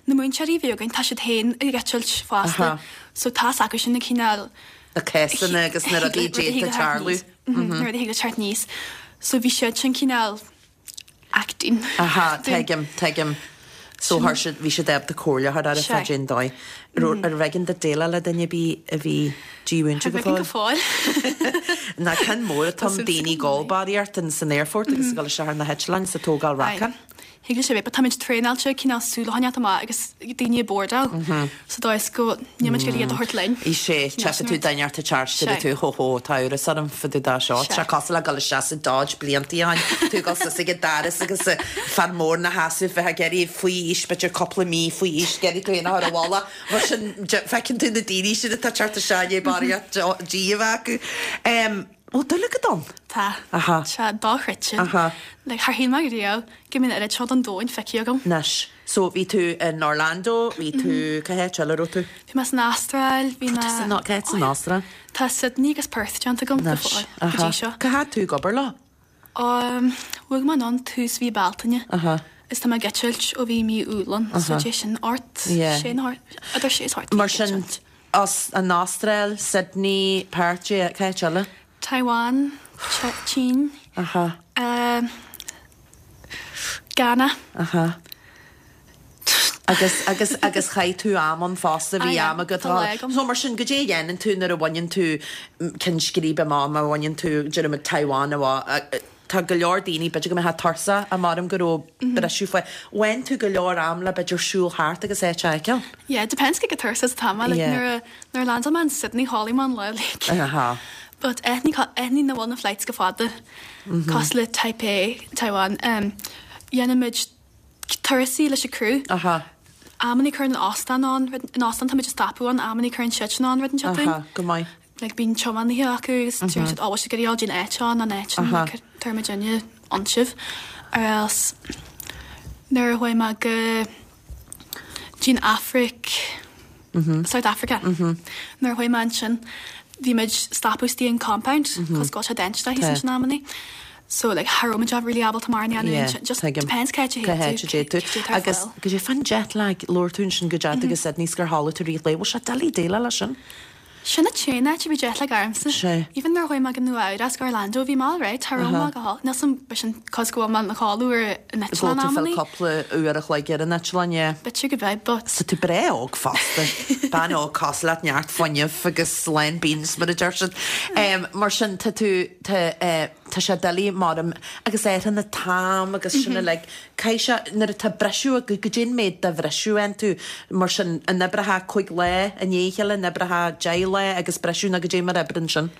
na múinteoirí a bhí againn, tá siad féin ag eitilt fosta so tá's acu sin na cineál. Na cásanna agus na rudaí a d'fhéadfadh tarlú. Na rudaí a thig le teacht aníos. So bhí siad sin cineál acting. Aha, tuigim, tuigim. So chuir siad, bhí siad ábalta comhairle a chur ort fá cén dóigh. Arbh éigean duit déileáil le duine ar bith a bhí dímhúinte go fóill? Go fóill. Ná ceann mór atá ann daoine ag gabháil barraíocht in san aerfort agus ag dul isteach ar na heitleáin is ag tógáil racáin. Thig leis a bheith, but táimid traenáilte cineál súil a choinneáilt amach agus daoine ag bordáil sa dóigh is go níl muid ag iarraidh iad a thabhairt linn. Is é, tchífidh tú duine ort ag teacht, deir tú, hó hó, tá amhras orm fá dtaobh de seo. Tá sé cosúil le dul isteach sa Dodge bliantaí ó shin, tú ag dul suas ag an doras agus fear mór ina sheasamh bheith ag iarraidh faoi aois, b'fhéidir cúpla mí faoi aois, ag iarraidh tú féin a chur i bhfolach. Mar sin, feiceann tú na daoine sin atá ag teacht isteach i ndiaidh barraíocht dí a bheith acu. Bhfuil dúil agat ann? Tá. Aha. Tá sé dochreidte. Aha. Like, char shíl mé riamh go mbeadh an oiread seo den domhan feicthe agam. Anois. So, bhí tú in Orlando, bhí tú, cá háit eile a raibh tú? Bhí mé san Astráil, bhí mé. San, cá háit san Astráil? Tá Sydney agus Perth déanta agam go Anois. fóill, go Aha. dtí seo. Cá fhad tú ag obair leo? Um, bhog mé anonn tús mhí Bealtaine. Aha. Is tá mé ag eitilt ó bhí mí Iúil ann, so Aha. dé sin ort, Yeah. sé nó idir sé is ocht Mar sin, As an Astráil, Sydney, Perth, cá háit eile? Taiwan, tSín, Aha. Ghana. Aha. Agus, agus, agus chaith tú am ann fosta, bhí am agat Tá lá agam. So mar sin, goidé a dhéanann tú nuair a bhaineann tú ceann scríbe amach, má bhaineann tú, déarfaimid Taiwan amach, Tá go leor daoine, b'fhéidir go mbeifeá tuirseach, maram go raibh briseadh faoi. Bhain tú go leor am le b'fhéidir siúl thart agus áit a fheiceáil? Yeah, depends cé chomh tuirseach is atá mé, like Yeah. nuair a, nuair a landáil mé in Sydney chodlaigh mé an lá like. Aha. But áiteannaí, áiteannaí nach bhfuil na flights go fada, cosúil le Taipei, Taiwan, um, dhéanaimid turasaí leis an crew. Aha. Amannaí cuireann an óstán ann, an óstán táimid ag stopadh ann, amannaí cuireann siadsan ann rud inteacht dúinn. Aha, go maith. like bíonn tiománaithe acu agus deireann siad oh bhfuil sibh ag iarraidh dul dtí'n áit seo nó an áit sin like tabharfaidh muidinne ann sibh or else nuair a chuaigh mé go dtí'n Afraic South Africa nuair a chuaigh mé ansin bhí muid stopadh istigh in compound cos go bhfuil sé dainséarach thíos ansin amannaí so like cha raibh muid really ábalta mórán a dhéanamh ansin just depends cá háit a Cá háit a dtéann dtéann tú. tú cad é atá ar Agus fáil. goidé fán jet lag labhair tú ansin go dteachaigh tú go Sydney 's gur chodlaigh tú i rith an lae bhfuil sé doiligh déileáil leis sin? Sin an t-aon áit a bhí jet lag ormsa. Sea. Even nuair a chuaigh mé go Nua Eabhrac go Orlando bhí mé alright, cha raibh mé go holc. Níl 's a'm b'shin cos go bhfuil mé ina chodladh ar an Go eitleán bhfuil tú amannaí. cúpla uair a chloig ar an eitleán, yeah. B'fhéidir go b'ea but. Tá tú breá óg fosta. Bean óg cosúil leat, neart fuinnimh agus lán beans mar a deir siad. Mar sin tá tú, tá eh, tá sé doiligh maram agus ar an t-am agus sin uilig. Caithfidh sé, nuair atá briseadh agat, goidé an méid de bhriseadh a fhaigheann tú, mar sin, an oibreofá 5 lá i ndiaidh a chéile, an oibreofá 10 lá agus briseadh nó goidé mar a oibreann sin?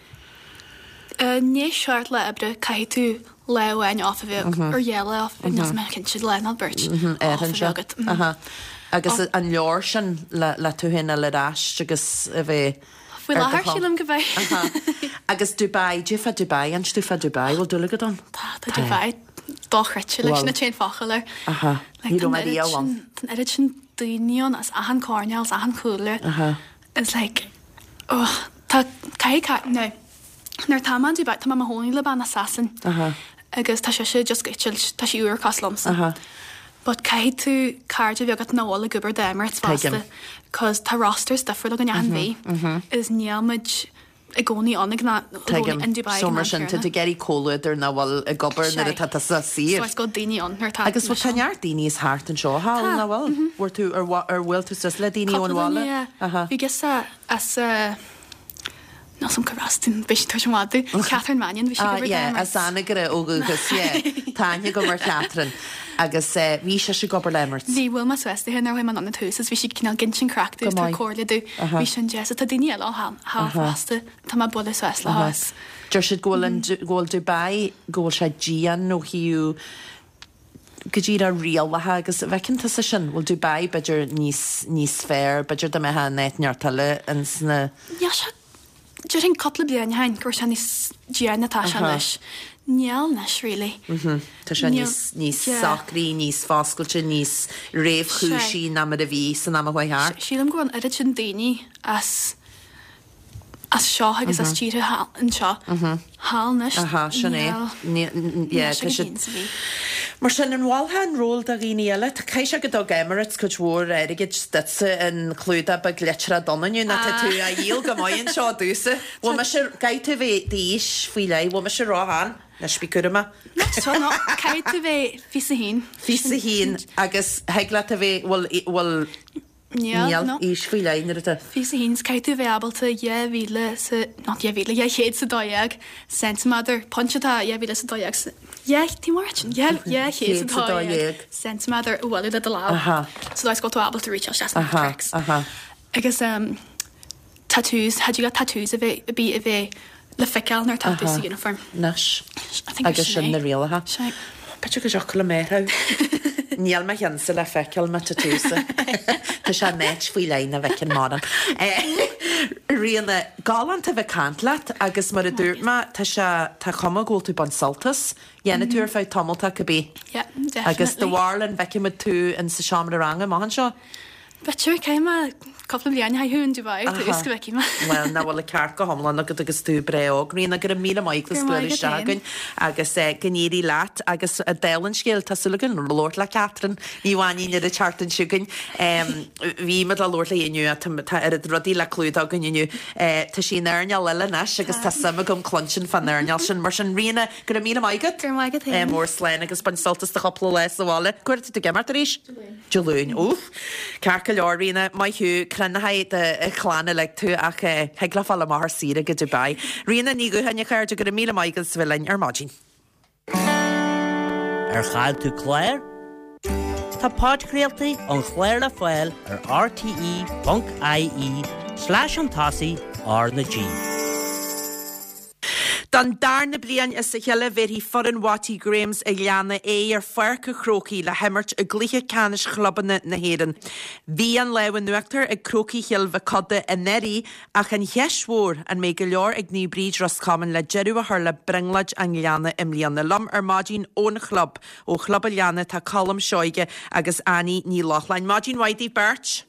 I ndiaidh seacht lá oibre caithfidh tú lá amháin off a bheith agat, or dhá lá off, níl mé cinnte, lá nó beirt off a bheith agat. Aha. Agus an leor sin le tú féin a fháil ar ais agus a bheith Faoi láthair, sílim go mbeidh. Agus Dubai, goidé fá Dubai, inis domh fá Dubai, bhfuil dúil agat ann? Tá, tá Dubai dochreidte, like sin an t-aon focal air. Aha, ní raibh mé riamh ann. Tá an oiread sin daoine ann as achan coirnéal, as achan chúlra. Aha. It's like, oh, tá, caithfidh, now, nuair atá mé in Dubai, tá mé i mo chónaí le bean as Sasain. Aha. Agus tá sise just ag eitilt, tá sí úr cosúil liomsa. Aha. But caithfidh tú cairde a bheith agat nach bhfuil ag obair d'Emirates fosta cos tá rosters difriúil againn achan mhí is níl muid i gcónaí ann ag an i gcónaí in Dubai So ag an mar am sin tá céanna. tú ag iarraidh comhluadar nach bhfuil ag obair nuair atá tusa saor. So is go daoine ann nuair atá Agus bhfuil tá neart daoine as thart anseo thall Tá. nach bhfuil? Bhfuair tú ar ar bhuail tú suas le daoine ón Cúpla bhaile? duine yeah. Aha. Bhí girseach as eh Níl 's a'm cárb as di, beidh sí tar éis an mhadadh. Catherine Mannion, bhí sí ag Ah obair yeah, d'Emirates. as Anagaire ó dhúchas, yeah. Tá aithne agam ar Chatherine. Agus eh bhí sise ag obair le Emirates. Bhí, bhuail mé suas léi nuair a chuaigh mé anonn ar tús is bhí sí cineál ag insint craic domh Go is tabhairt maith. comhairle domh. Aha. Bhí sin deas. Tá daoine eile ann thall Aha. fosta. Tá mé ag bualadh suas leo Aha. is. Deir siad go bhfuil an, go bhfuil Dubai, go bhfuil sé dian ó thaobh go díreach rialacha agus an bhfeiceann tusa sin, bhfuil Dubai b'fhéidir níos, níos fearr, b'fhéidir dá mbeifeá in áit inteacht eile ins na. Níl sé, déarfainn cúpla bliain ó shin go raibh sé níos déine ná atá sé anois. Níl anois really. Tá sé níos, níos socraí, níos foscailte, níos réamhchúisí ná mar a bhí san am a chuaigh thart. Sílim go bhfuil an oiread sin daoine as as seo agus as tíortha anseo thall anois. Aha, sin é. Níl, yeah, tá siad. Mar sin, an mholfá an ról do dhaoine eile? Caithfidh sé go dtug Emirates cuid mhór airgid duitse an clúdach beag litreach donn inniu, nó tá tú á dhíol go maith anseo domhsa. Bhfuil mise, caithfidh tú bheith d'aois faoi leith, bhfuil mise ró-shean? Anois bí cúramach. Not no, caithfidh tú bheith 21. 21 agus thig leat a bheith, bhfuil, bhfuil, Níl, Níl aois faoi leith nuair atá. 21 's caithfidh tú a bheith ábalta 2,000 sa, not 2,000, 212 ceintiméadar, pointe atá 2,012, dhá, tí mar sin, 212 ceintiméadar a bhualadh le do lámh. So that's go bhfuil tú ábalta reach isteach sna cracks. Agus um, tattoos, had you got tattoos a bheith, a bith a bheith le feiceáil nuair atá tú sa uniform. Anois. Agus sin na rialacha. Sea. B'fhéidir go dtiocfadh liom é a Níl mo cheannsa le feiceáil mo tattoos-sa. Tá sé in áit faoi leith nach bhfeiceann mórán. Ríona, galánta bheith ag caint leat agus mar a dúirt mé, tá sé, tá cuma go bhfuil tú ag baint sult as. Dhéanfaidh tú ar feadh tamalt cibé. Yeah, definitely. Agus do bharúil an bhfeicfidh muid tú in sa seomra ranga amach anseo? B'fhéidir, caithfidh mé cúpla bliain a chaitheamh in Dubai ar dtús go bhfeicfidh mé. Bhuel, nach bhfuil an ceart go hiomlán agat agus tú breá óg. Ríona, go raibh míle maith agat as bualadh isteach chugainn agus go n-éirí leat agus dála an scéil, tá súil againn labhairt le Catherine Ní Mhainín ar an tseachtain seo chugainn. Bhí muid le labhairt léi inniu ach tá oiread rudaí le clúdach againn inniu. Tá sí in earnáil eile anois agus tá suim agam cluinstin fán earnáil sin. Mar sin, Ríona, go raibh míle maith agat. Go raibh maith agat féin. Mór slán agus bain sult as do chúpla lá sa bhaile. Cá huair atá tú ag imeacht arís? Dé Luain. Úff! Ceart go leor, Ríona, maith thú. Croinnfidh do chlann uilig tú ach thig leo fáil amach ar saoire go Dubai. Ríona Ní Dhúcháin, a chairde, go raibh míle maith agat as a bheith linn ar maidin. Ar chaill tú clár? Tá podchraoltaí an chláir le fáil ar rte.ie slash chun tosaigh R na G. Don darna bliain as a chéile bhéarfaidh foireann Watty Grahams an Ghleanna aghaidh ar Pháirc an Chrócaigh le himirt i gcluiche ceannais chlubanna na hÉireann. Bhí an lámh in uachtar ag Crócaigh Chill Mhic Coda anuraidh ach an cheist mhór, an mbeidh go leor ag Naomh Bríd Ros Comáin le deireadh a chur le brionglóid an Ghleanna i mbliana? Liom ar maidin ón chlub, ó Chlub an Ghleanna, tá Colm Seoige agus Annie Ní Lochlainn. Maidin mhaith daoibh beirt!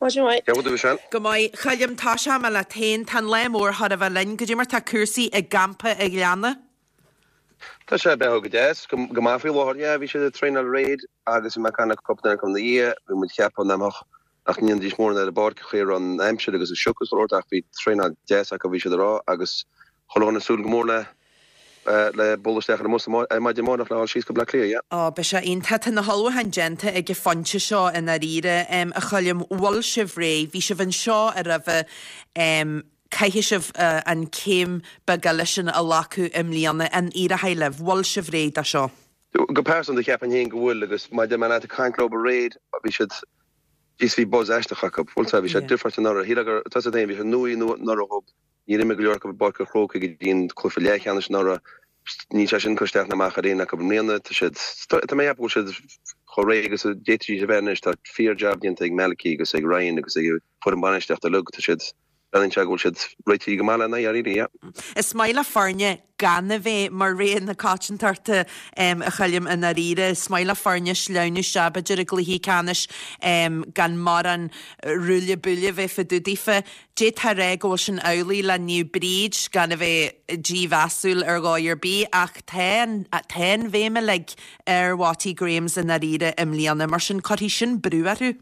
Maidin mhaith. Cén chaoi a bhfuil tú, Michelle? Go maith. A Choilm, tosóidh mé leat féin. Tá an lá mór chóir a bheith linn. Goidé mar tá cúrsaí i gcampa an Ghleanna? Tá sé ag beathú go deas, go maith faoi láthair. Yeah, bhí siad ag traenáil aréir agus bhí mé ag caint le cúpla duine acu ina dhiaidh. Bhí muid ag ceapadh nach mbeadh, nach ndéanfaidís mórán ar an bpáirc, an chaoi a raibh an aimsir agus an sioc is chuile shórt ach bhí traenáil deas acu, bhí siad ag rá, agus chuile dhuine ag súil go mór le le bualadh isteach ar an mbus ar maidin amárach le dhul síos go Bleá Cliath, yeah. Ó, beidh sé iontach. Tá na hullmhúcháin déanta ag an phointe seo i ndáiríre, a Choilm. Bhfuil sibh réidh? Bhí sibh anseo aroimhe. Caithfidh sibh an céim beag eile sin a ghlacadh i mbliana. An éireoidh libh? Bhfuil sibh réidh do seo? Go pearsanta, cheapfainn féin go bhfuil agus maidir le leat ag caint leo aréir, bhí siad, jeez, bhí buzz aisteach acu. Bhfuil 's bhí sé difriúil anuraidh. Shílfeá gur, tá 's agat féin, bhí sé nua anuraidh dhób. Níor imir go leor acu i bPáirc an Chrócaigh go dtí an cluiche leathcheannais anuraidh. Níl sé sin ag cur isteach ná amach ar aon acu i mbliana. Tá siad, tá mé ag ceapadh go bhfuil siad chomh réidh agus a d'fhéadfaidís a bheith anois. Tá fíor-jab déanta ag Malachy agus ag Ryan agus ag an bhfoireann bainistíochta uilig. Tá siad, breathnaíonn sé go bhfuil siad réitithe go maith lena aghaidh, dáiríre, yeah. Is maith le foirne gan a bheith mar rogha na coitiantachta, a Choilm, i ndáiríre. Is maith le foirne sleamhnú isteach, b'fhéidir, i gcluichí ceannais gan mórán ruaille buaille a bheith fá dtaobh daofa. D'fhéadfá a rá go bhfuil sin amhlaidh le Naomh Bríd, gan a bheith dímheasúil ar dhóigh ar bith, ach tá an, tá an bhéim uilig ar Watty Grahams i ndáiríre i mbliana, mar sin cuirfidh sin brú orthu.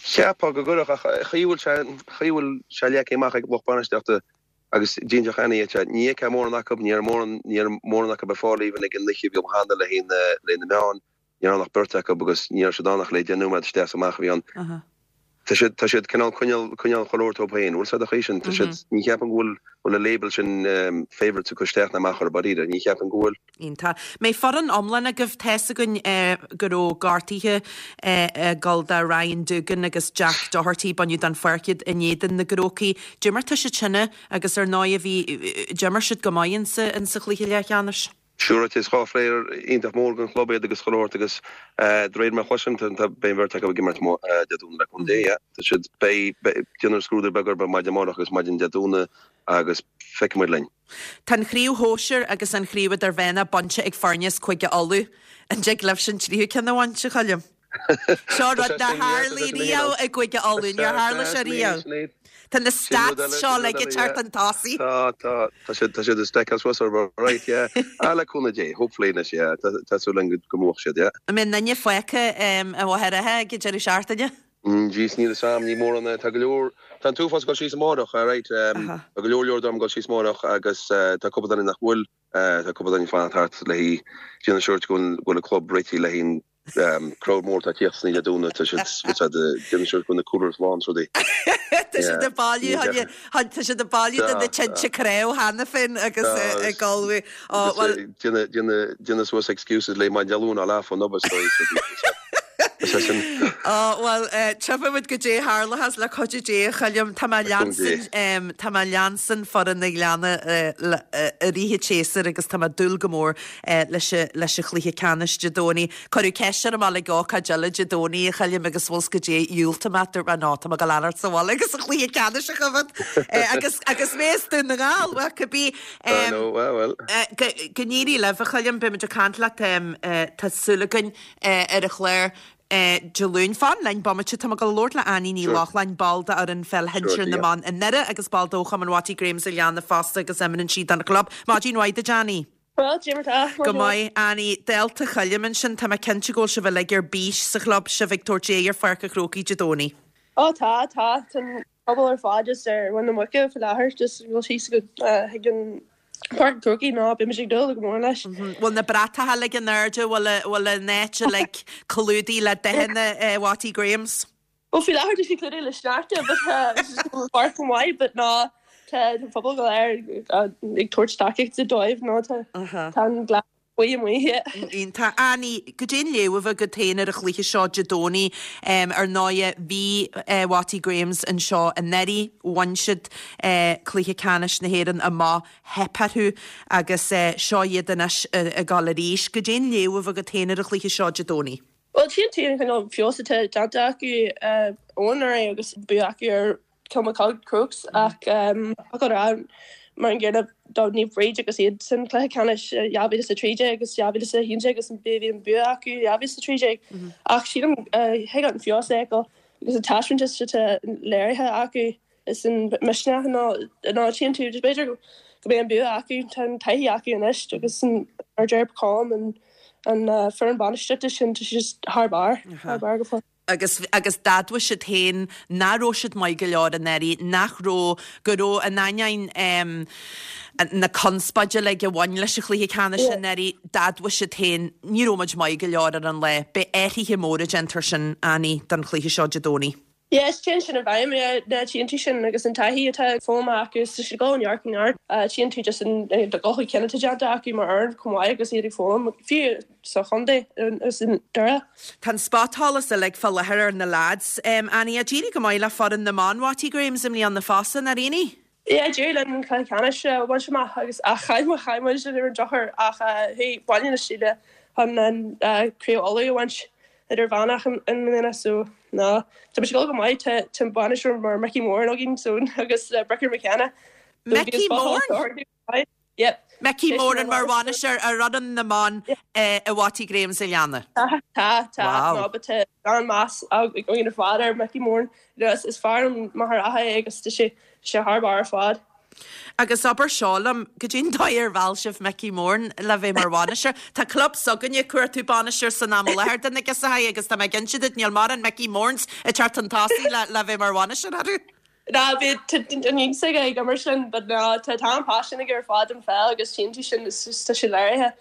Cheapfá go gcuirfeadh, ach an chaoi a bhfuil sé, an chaoi a bhfuil sé leagtha amach ag lucht bainistíochta agus d'inseodh Annie dhuit é, ní fheicfeá mórán acu, ní raibh mórán, ní raibh mórán acu ar fáil even ag an oíche a bhí cheana le haghaidh na, le haghaidh na meáin. Ní raibh ann ach beirt acu agus ní raibh siad ann ach le deich nóiméad isteach is amach a bhí ann. Tá siad, tá siad cineál coinneáil, coinneáil chuile shórt dóibh féin. Bhfuil 's a'd an chaoi sin? Tá siad, ní cheapaim go bhfuil, bhfuil an label sin favourites ag cur isteach ná amach orthu, dáiríre. Ní cheapaim go bhfuil. Iontach. Mbeidh foireann iomlán agaibh? Tá's againn go raibh gortuithe ag dul do Ryan Doogan agus Jack Doherty, baineadh den pháirc iad in éadan na gCrócaigh. D'imir tá siad sin agus ar ndóigh bhí, d'imir siad go maith insa, insa chluiche leathcheannais. Sure, is 2 phlayer iontach mór don chlub iad agus chuile shórt agus de réir mar a chloisim, tá, beidh an bheirt acu ag imirt Dé Domhnaigh le cúnamh Dé, yeah. Tá siad, beidh, beidh, déanfar scrúdú beag orthu maidin amárach agus maidin Dé Domhnaigh agus feicfidh muid linn. Tá an chraobh shóisir agus an chraobh idirmheánach bainte ag foirne as Cúige Uladh. An dtig libhse an tríú ceann a bhaint, a Choilm? Seo rud nár tharlaigh riamh i gCúige Uladh, níor tharla sé riamh. Tá na stats seo uilig ag teacht chun tosaigh. Tá, tá, tá siad, tá siad ag stackáil suas orthu, right, yeah. Ah, le cúnamh Dé, hopefully anois, yeah, tá, tá súil againn go mbuafadh siad, yeah. An mbeidh aon duine fágtha i Machaire Rátha ag an deireadh seachtaine? Jeez, níl 'fhios a'm, ní mórán, tá go leor, tá an t-uafás ag dul síos amárach, right, tá go leor leor dom ag dul síos amárach agus tá cúpla duine nach bhfuil, tá cúpla duine ag fanacht thart le haghaidh, déanamh sure go bhfuil an club réitithe le haghaidh an crowd mór atá ag tíocht san oíche Dé Domhnaigh, tá siad, what's that, déanamh sure go bhfuil na coolers lán is rudaí. Tá siad ag bailiú, tá siad ag bailiú do na tinte cnámh cheana féin agus ag ullmhú. Ó, bhuel. Déanamh suas excuses le maidin Dé Luain á leath fán obair so is é sin. Ó, bhuel, tchífidh muid goidé a tharlóchas le cuidiú Dé, a Choilm. Tá mé leansain, tá mé leansain foireann na Gleanna i rith an tséasúir agus tá mé ag dúil go mór leis leis an chluiche ceannais Dé Domhnaigh. Cuireadh ceist orm a ag ócáid eile Dé Domhnaigh, a Choilm, agus bhfuil 's goidé, dhiúltaigh mé, dúirt mé, no, tá mé ag dul a fhanacht sa bhaile agus an chluiche ceannais a choimhéad. Agus agus mé as Dún na nGall, bhuel, cibé. I know, well, well. Go n-éirí libh, a Choilm, beidh muid ag caint leat, tá súil againn, ar an chlár Dé Luain. Fan linn bomaite, tá mé ag dul a labhairt le Annie Ní Lochlainn, ball d'fhoireann pheil shinsir na mban i nDoire agus ball d'fhochumann Watty Grahams an Ghleanna fosta agus imríonn sí don chlub. Maidin mhaith duit, Annie. Bhuel, goidé mar tá. Go maith, Annie. Dálta Choilm ansin, tá mé cinnte go bhfuil sibh uilig ar bís sa chlub, sibh ag tabhairt aghaidh ar Pháirc an Chrócaigh Dé Domhnaigh. Ó tá, tá. Tá an pobal ar fad just ar mhuin na muice faoi láthair, just ag dul síos go chuig an Páirc an Chrócaigh ná beidh muid ag dúil go mór leis. Bhfuil na bratacha uilig in airde, bhfuil an áit uilig clúdaithe le dathanna Watty Grahams? Bhuel faoi láthair tá sé clúdaithe le sneachta but tá an chomh maith but ná tá an pobal go léir ag tabhairt tacaíochta dóibh nó tá tá an glas buí amuigh yeah. Iontach. Annie, goidé an léamh a bheadh agat féin ar an chluiche seo Dé Domhnaigh? Ar ndóighe bhí Watty Grahams anseo anuraidh, bhain siad cluiche ceannais na hÉireann amach, theip orthu agus seo iad anois ag dul arís. Goidé an léamh a bheadh agat féin ar an chluiche seo Dé Domhnaigh? Bhuel, tchíonn tú an cineál feabhas atá déanta acu ó anuraidh agus bua acu ar Kilmacud Crokes ach caithfidh a rá mar an gcéanna do Naomh Bríd agus iad san cluiche ceannais 2013 agus 2011 agus bhí an bua acu 2013 ach sílim thig an feabhas a fheiceáil agus an taispeántas atá léirithe acu. Is an misneach ná ná tchíonn tú b'fhéidir go mbeidh an bua acu, tá an taithí acu anois agus an mar deir Colm an an foireann bainistíochta sin tá sé just thar barr, thar barr go fóill. Agus agus d'admhaigh siad féin nach raibh siad maith go leor anuraidh, nach raibh, go raibh in ainneoin na conspóide uilig a bhain leis an chluiche ceannais anuraidh, d'admhaigh siad féin ní raibh muid maith go leor ar an lá. Beidh athruithe móra déanta air sin, Annie, don chluiche seo Dé Domhnaigh. Yes, téann sin i bhfeidhm, yeah, na tchíonn tú sin agus an taithí atá foghlamtha acu is tá siad ag dul ó neart go neart. Tchíonn tú just an dul chun cinn atá déanta acu mar fhoireann chomh maith agus iad ag foghlaim, fiú sa chontae agus i nDoire. Tá an spotsholas uilig fá láthair ar na lads. Annie, d'éirigh go maith le foireann na mban Watty Grahams i mbliana fosta, nár éirigh? Yeah, d'éirigh linn an cluiche ceannais a bhaint amach agus ach chaill muid, chaill muid ar an drochuair ach chuaigh Baile na Síle chun an Craobh Uladh a bhaint idirmheánach i mbliana so ná tá muid ag dul go maith tá tá an bainisteoir mar Mickey Moran againn so agus Bricker McKenna so Mickey Moran? Yep. Mickey Moran mar bhainisteoir ar fhoireann na mban i Watty Grahams an Ghleanna. Tá, tá, tá. Wow. No, but tá an-mheas againn ar fad ar Mickey Moran. You know, is, is fear ón Machaire Rátha é agus tá sé, sé thar barr ar fad. Agus abair seo liom, goidé an dóigh ar mheall sibh Mickey Moran le bheith mar bhainisteoir? Tá club s'againne ag cuartú bainisteoir san am i láthair do na girseachaí agus tá mé ag inse duit níl mórán Mickey Morans ag teacht chun tosaigh le, le bheith mar bhainisteoir orthu. Ná bhí an iontas aige ag imirt linn but ná tá tá an-phaisean aige ar fad don pheil agus tchíonn tú sin is just tá sé léirithe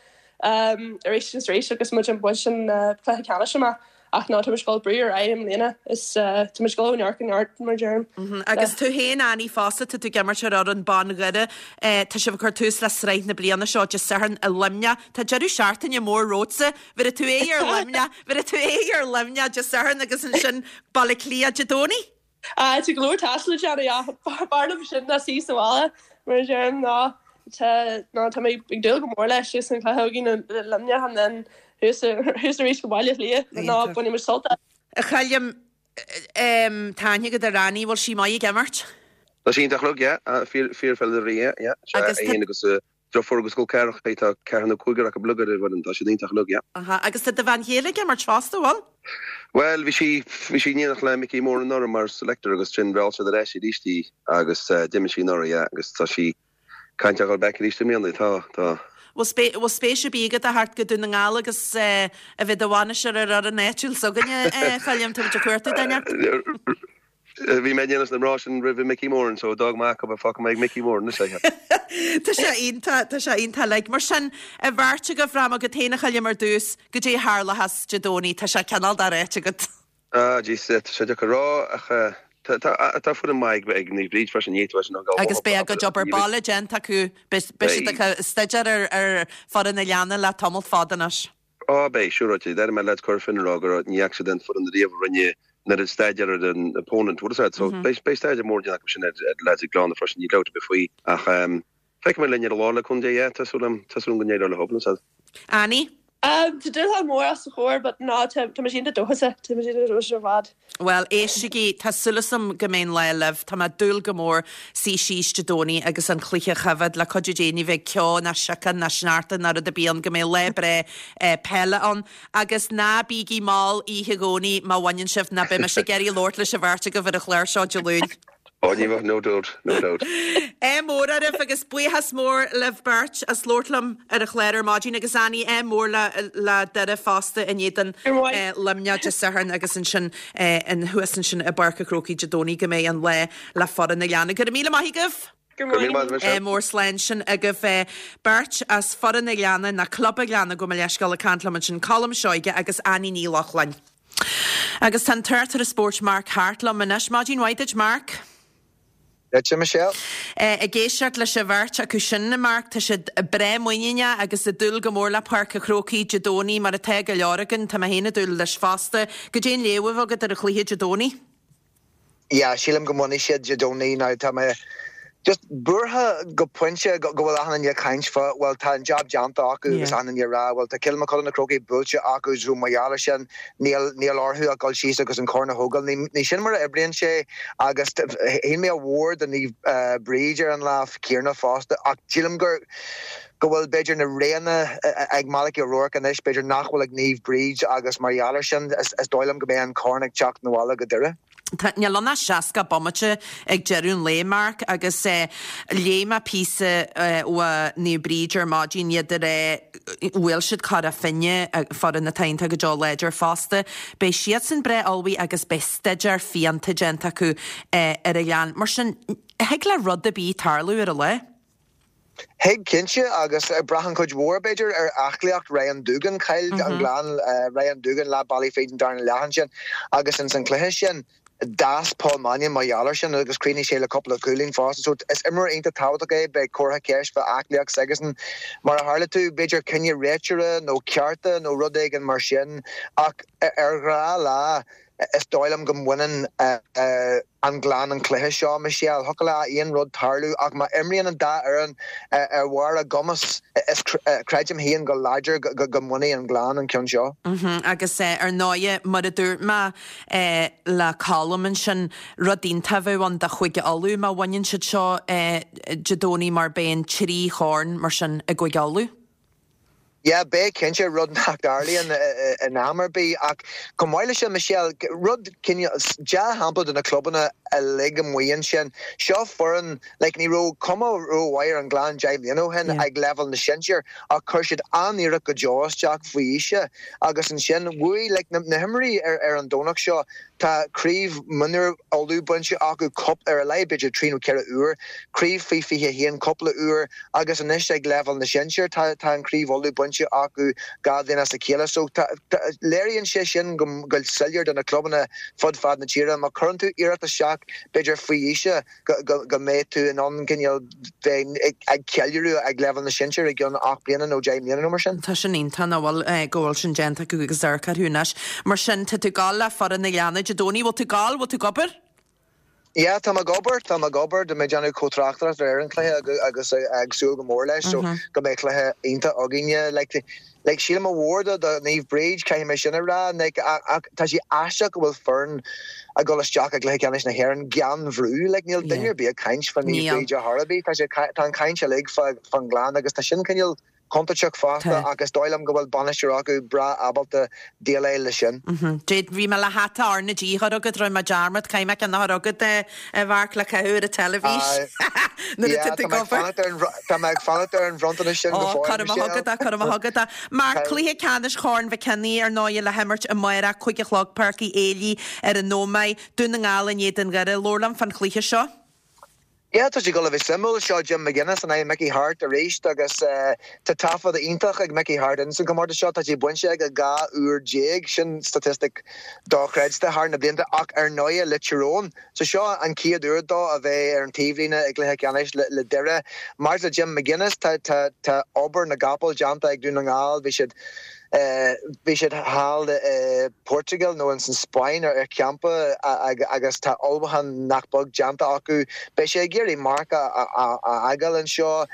arís agus arís agus muid ag baint an cluiche ceannais amach ach ná tá muid ag dul brú ar aghaidh i mbliana is tá muid ag dul ó neart go neart mar a deirim. Agus tú féin Annie fosta tá tú ag imirt ar fhoireann ban Dhoire tá sibh ag cur tús le sraith na bliana seo Dé Sathairn i Luimneach. Tá deireadh seachtaine mór romhatsa. Bhéarfaidh tú aghaidh ar Luimneach, bhéarfaidh tú aghaidh ar Luimneach Dé Sathairn agus ansin Baile Átha Cliath Dé Domhnaigh. Tá go leor taistil le déanamh ach b'fhearr liom sin ná suí sa bhaile mar a deirim ná tá ná tá mé ag dúil go mór leis agus an cluiche againn i Luimneach and then thuas thuas arís go Baile Átha Cliath ná bainfidh muid sult as. A Choilm, tá aithne agat ar Annie, bhfuil sí maith ag imirt? Tá sí iontach, look, yeah, fíor fíorpheileadóir í, yeah, yeah, sea, Agus é féin agus. Drochfhoireann go Col Ceathrach tá ceathrar nó cúigear acu uilig ar an bhfoireann, tá siad iontach uilig, yeah. Aha, agus tá do bhean chéile ag imirt fosta, bhfuil? Bhuel, bhí sí, bhí sí in éineacht le Mickey Moran anuraidh mar selector agus ansin mheall siad ar ais arís í agus d'imir sí anuraidh, yeah, agus tá sí ag caint ar dhul back arís i mbliana, tá, tá. Bhfuil bhfuil spéis ar bith agat a theacht go Dún na nGall agus a bheith i do bhainisteoir ar fhoireann áitiúil s'againne, a Choilm, tá muid ag cuartú duine. Bhí mé in éineacht leis na mná sin roimh Mickey Moran so d'fhág mé acu a fágfaidh mé ag Mickey Moran anois é. Tá sé iontach, tá sé iontach like. Mar sin, an bheirt agaibh, rachaidh mé agat féin a Choilm ar dtús, goidé a tharlóchas Dé Domhnaigh, tá sé cineál doráite agat. Ah jeez, tá sé deacair a rá ach tá tá tá foireann maith ag Naomh Bríd freisin, ní fhéadfá sin a ghabháil Agus beidh a gcuid obair baile déanta acu, beidh siad ag staidéar ar ar foireann an Ghleanna le tamall fada anois. Á, beidh, siúráilte. D'airigh mé leaids Cora Finne ag rá go raibh, ní fhaca siad aon foireann ariamh a rinne an oiread staidéar ar an opponent, bhfuil a fhios agat. So, beidh, beidh staidéar mór déanta acu sin ar, ar leaids an Ghleanna freisin, níl dabht ar bith faoi. Ach, ehm, feicfidh mé linn ar an lá le cúnamh Dé, yeah, tá súil agam, tá súil agam go n-éireoidh leo, bhfuil a fhios agat. Annie? Tá dúshlán mór os a chomhair but ná, tá, tá mise iontach dóchasach, tá mise iontach dóchasach ar fad. Bhuel, éistigí, tá súil agam go mbeidh an lá libh. Tá mé ag dúil go mór suí síos Dé Domhnaigh agus an cluiche a choimhéad. Le cuidiú Dé ní bheidh ceo ná siocán ná sneachta ná rud ar bith ann, go mbeidh lá breá peile ann. Agus ná bígí mall oíche Dhomhnaigh má bhaineann sibh, nó beidh mise ag iarraidh labhairt leis an bheirt agaibh ar an chlár seo Dé Luain. Ó, ní bheadh, no doubt, no doubt. Ádh mór oraibh agus buíochas mór libh beirt as labhairt liom ar an chlár ar maidin agus Annie, ádh mór le le Doire fosta in éadan Luimneach Dé Sathairn agus ansin thuas ansin i bPáirc an Chrócaigh Dé Domhnaigh go mbeidh an lá le foireann an Ghleanna. Go raibh míle maith agaibh! Go raibh míle maith agat. Ádh mór slán sin agaibh beirt as foireann an Ghleanna, nó Club an Ghleanna gabh mo leithscéal ag caint liom ansin, Colm Seoige agus Annie Ní Lochlainn. Agus tá an tráchtaire spóirt Mark Harte liom anois. Maidin mhaith duit, Mark. Duitse, Michelle. Ag éisteacht leis an bheirt acu sin, a Mark, tá siad breá muiníneach agus ag dúil go mór le Páirc an Chrócaigh Dé Domhnaigh, mar atá go leor againn. Tá mé féin ag dúil leis fosta. Goidé an léamh atá agat ar an chluiche Dé Domhnaigh? Yeah, sílim go mbainfidh siad Dé Domhnaigh. Now tá mé just buartha go pointe go bhfuil achan duine ag caint fá, bhuel tá an jab déanta acu agus achan duine ag rá bhuel tá Kilmacud na Crócaigh buailte acu so mar gheall ar sin níl níl orthu ach dul síos agus an corn a thógáil. Ní ní sin mar a oibríonn sé agus shíl mé a mhór do Naomh Bríd ar an lá céanna fosta ach sílim gur go bhfuil b'fhéidir na roghanna ag Malachy O'Rourke anois b'fhéidir nach bhfuil ag Naomh Bríd agus mar gheall ar sin is dóigh liom go mbeidh an corn ag teacht 'na bhaile go Doire. Tá, níl ann ach 60 bomaite ag deireadh an lae, Mark, agus léigh mé píosa ó Naomh Bríd ar maidin, iad ag rá, bhuail siad Cora Finne, foireann atá iontach go deo láidir fosta. Beidh siadsan breá ullmhaithe agus beidh staidéar fiánta déanta acu ar an Ghleann. Mar sin, thig le rud ar bith tarlú ar an lá. Thig, cinnte, agus braitheann cuid mhór, b'fhéidir, ar aclaíocht Ryan Doogan. Chaill an Gleann Ryan Doogan leath bealaigh fríd an darna leath ansin agus ins an cluiche sin d'fhás Paul Mannion mar gheall air sin agus chríochnaigh sé le cúpla cúilín fosta. So is imreoir iontach tábhachtach é, beidh comhartha ceist fá aclaíocht s'aigesan. Mar a tharla tú, b'fhéidir cinneadh réiteora nó cearta nó rud éigin mar sin ach ar ghnáthlá is dóigh liom go mbaineann an Gleann an cluiche seo, Michelle. Thiocfadh le aon rud tarlú ach má imríonn an dá fhoireann ar bharr a gcumas, is creidim féin go láidir go mbainfidh an Gleann an ceann seo. Agus ar ndóighe, mar a dúirt mé le Colm ansin, rud iontach a bheadh ann do Chúige Uladh má bhaineann siad seo Dé Domhnaigh mar beidh an trí chorn mar sin i gCúige Uladh. Yeah, beidh cinnte, rud nach dtarlaíonn in am ar bith. Ach chomh maith leis sin, Michelle, rud cineál, dea-shampla do na clubanna uilig amuigh ansin. Seo foireann, like, ní raibh cuma rómhaith ar an nGleann 10 mbliana ó shin ag leibhéal na sinsear ach chuir siad an-iarracht go deo isteach faoi aois agus ansin bhuaigh, like, na himreoirí ar an Domhnach seo, Tá craobh mionúir Uladh bainte acu cúpla, ar a laghad b'fhéidir 3 nó 4 uair, craobh faoi 21 cúpla uair agus anois ag leibhéal na sinsear tá tá an craobh Uladh bainte acu 2 bhliain as a chéile. So tá léiríonn sé sin go go soiléir do na clubanna fud fad na tíre má chuireann tú iarracht isteach b'fhéidir faoi aois go mbeidh tú in ann cineál bheith ag ceiliúradh ag leibhéal na sinsear i gceann 8 mbliana nó 10 mbliana nó mar sin. Tá sin iontach nach bhfuil, go bhfuil sin déanta acu agus amharc orthu anois. Mar sin, tá tú ag gabháil le foireann an Ghleanna Dé Domhnaigh, bhfuil tú ag gabháil, bhfuil tú ag obair? Yeah, tá mé ag obair, tá mé ag obair, tá mé ag déanamh comh-tráchtaireacht ar an chluiche agus ag súil go mór leis, so go mbeidh cluiche iontach againne. Like, like sílim ádh mhór do do Naomh Bríd, caithfidh mé sin a rá, like, ach tá sé aisteach go bhfuil foireann ag dul isteach i gcluiche ceannais na hÉireann gan bhrú, like níl duine ar bith ag caint fá Naomh Bríd ar chor ar bith, tá sé, tá an chaint uilig fá fán nGleann agus tá sin cineál contúirteach fosta ach is dóigh liom go bhfuil bainisteoir acu breá ábalta déileáil leis sin. Dé, bhí mé le hata R na G a chur agat, rinne mé dearmad, caithfidh mé ceann a chur agat, a Mharc, le caitheamh ar an teilifís nuair atá tú ag obair. Tá mé ag fanacht ar an bhronntanas sin go fóill, Michelle. Cuirfidh mé chugat é, cuirfidh mé chugat é. Marc, cluiche ceannais Chorn Mhic Cionnaith, ar ndóigh, le himirt amárach, 5 a chlog, Páirc Uí Éilí ar an Ómaigh, Dún na nGall in éadan Dhoire. Labhair liom fán chluiche seo. Yeah, tá sé ag dul a bheith suimiúil. Seo Jim McGuinness in aghaidh Mickey Harte arís agus tá taifead iontach ag Mickey Harte ins an chomórtas seo. Tá sé bainte aige 12 uair, sin statistic dochreidte thar na blianta ach ar ndóighe le Tyrone. So seo an chéad uair dó a bheith ar an taobhlíne i gcluiche ceannais le Doire. Maidir le Jim McGuinness, tá tá tá obair na gcapall déanta ag Dún na nGall. Bhí siad Bhí siad thall i Portugal nó ins an Spáinn ar champa agus tá ullmhúchán nach beag déanta acu. Beidh sé ag iarraidh marc a fhágáil anseo.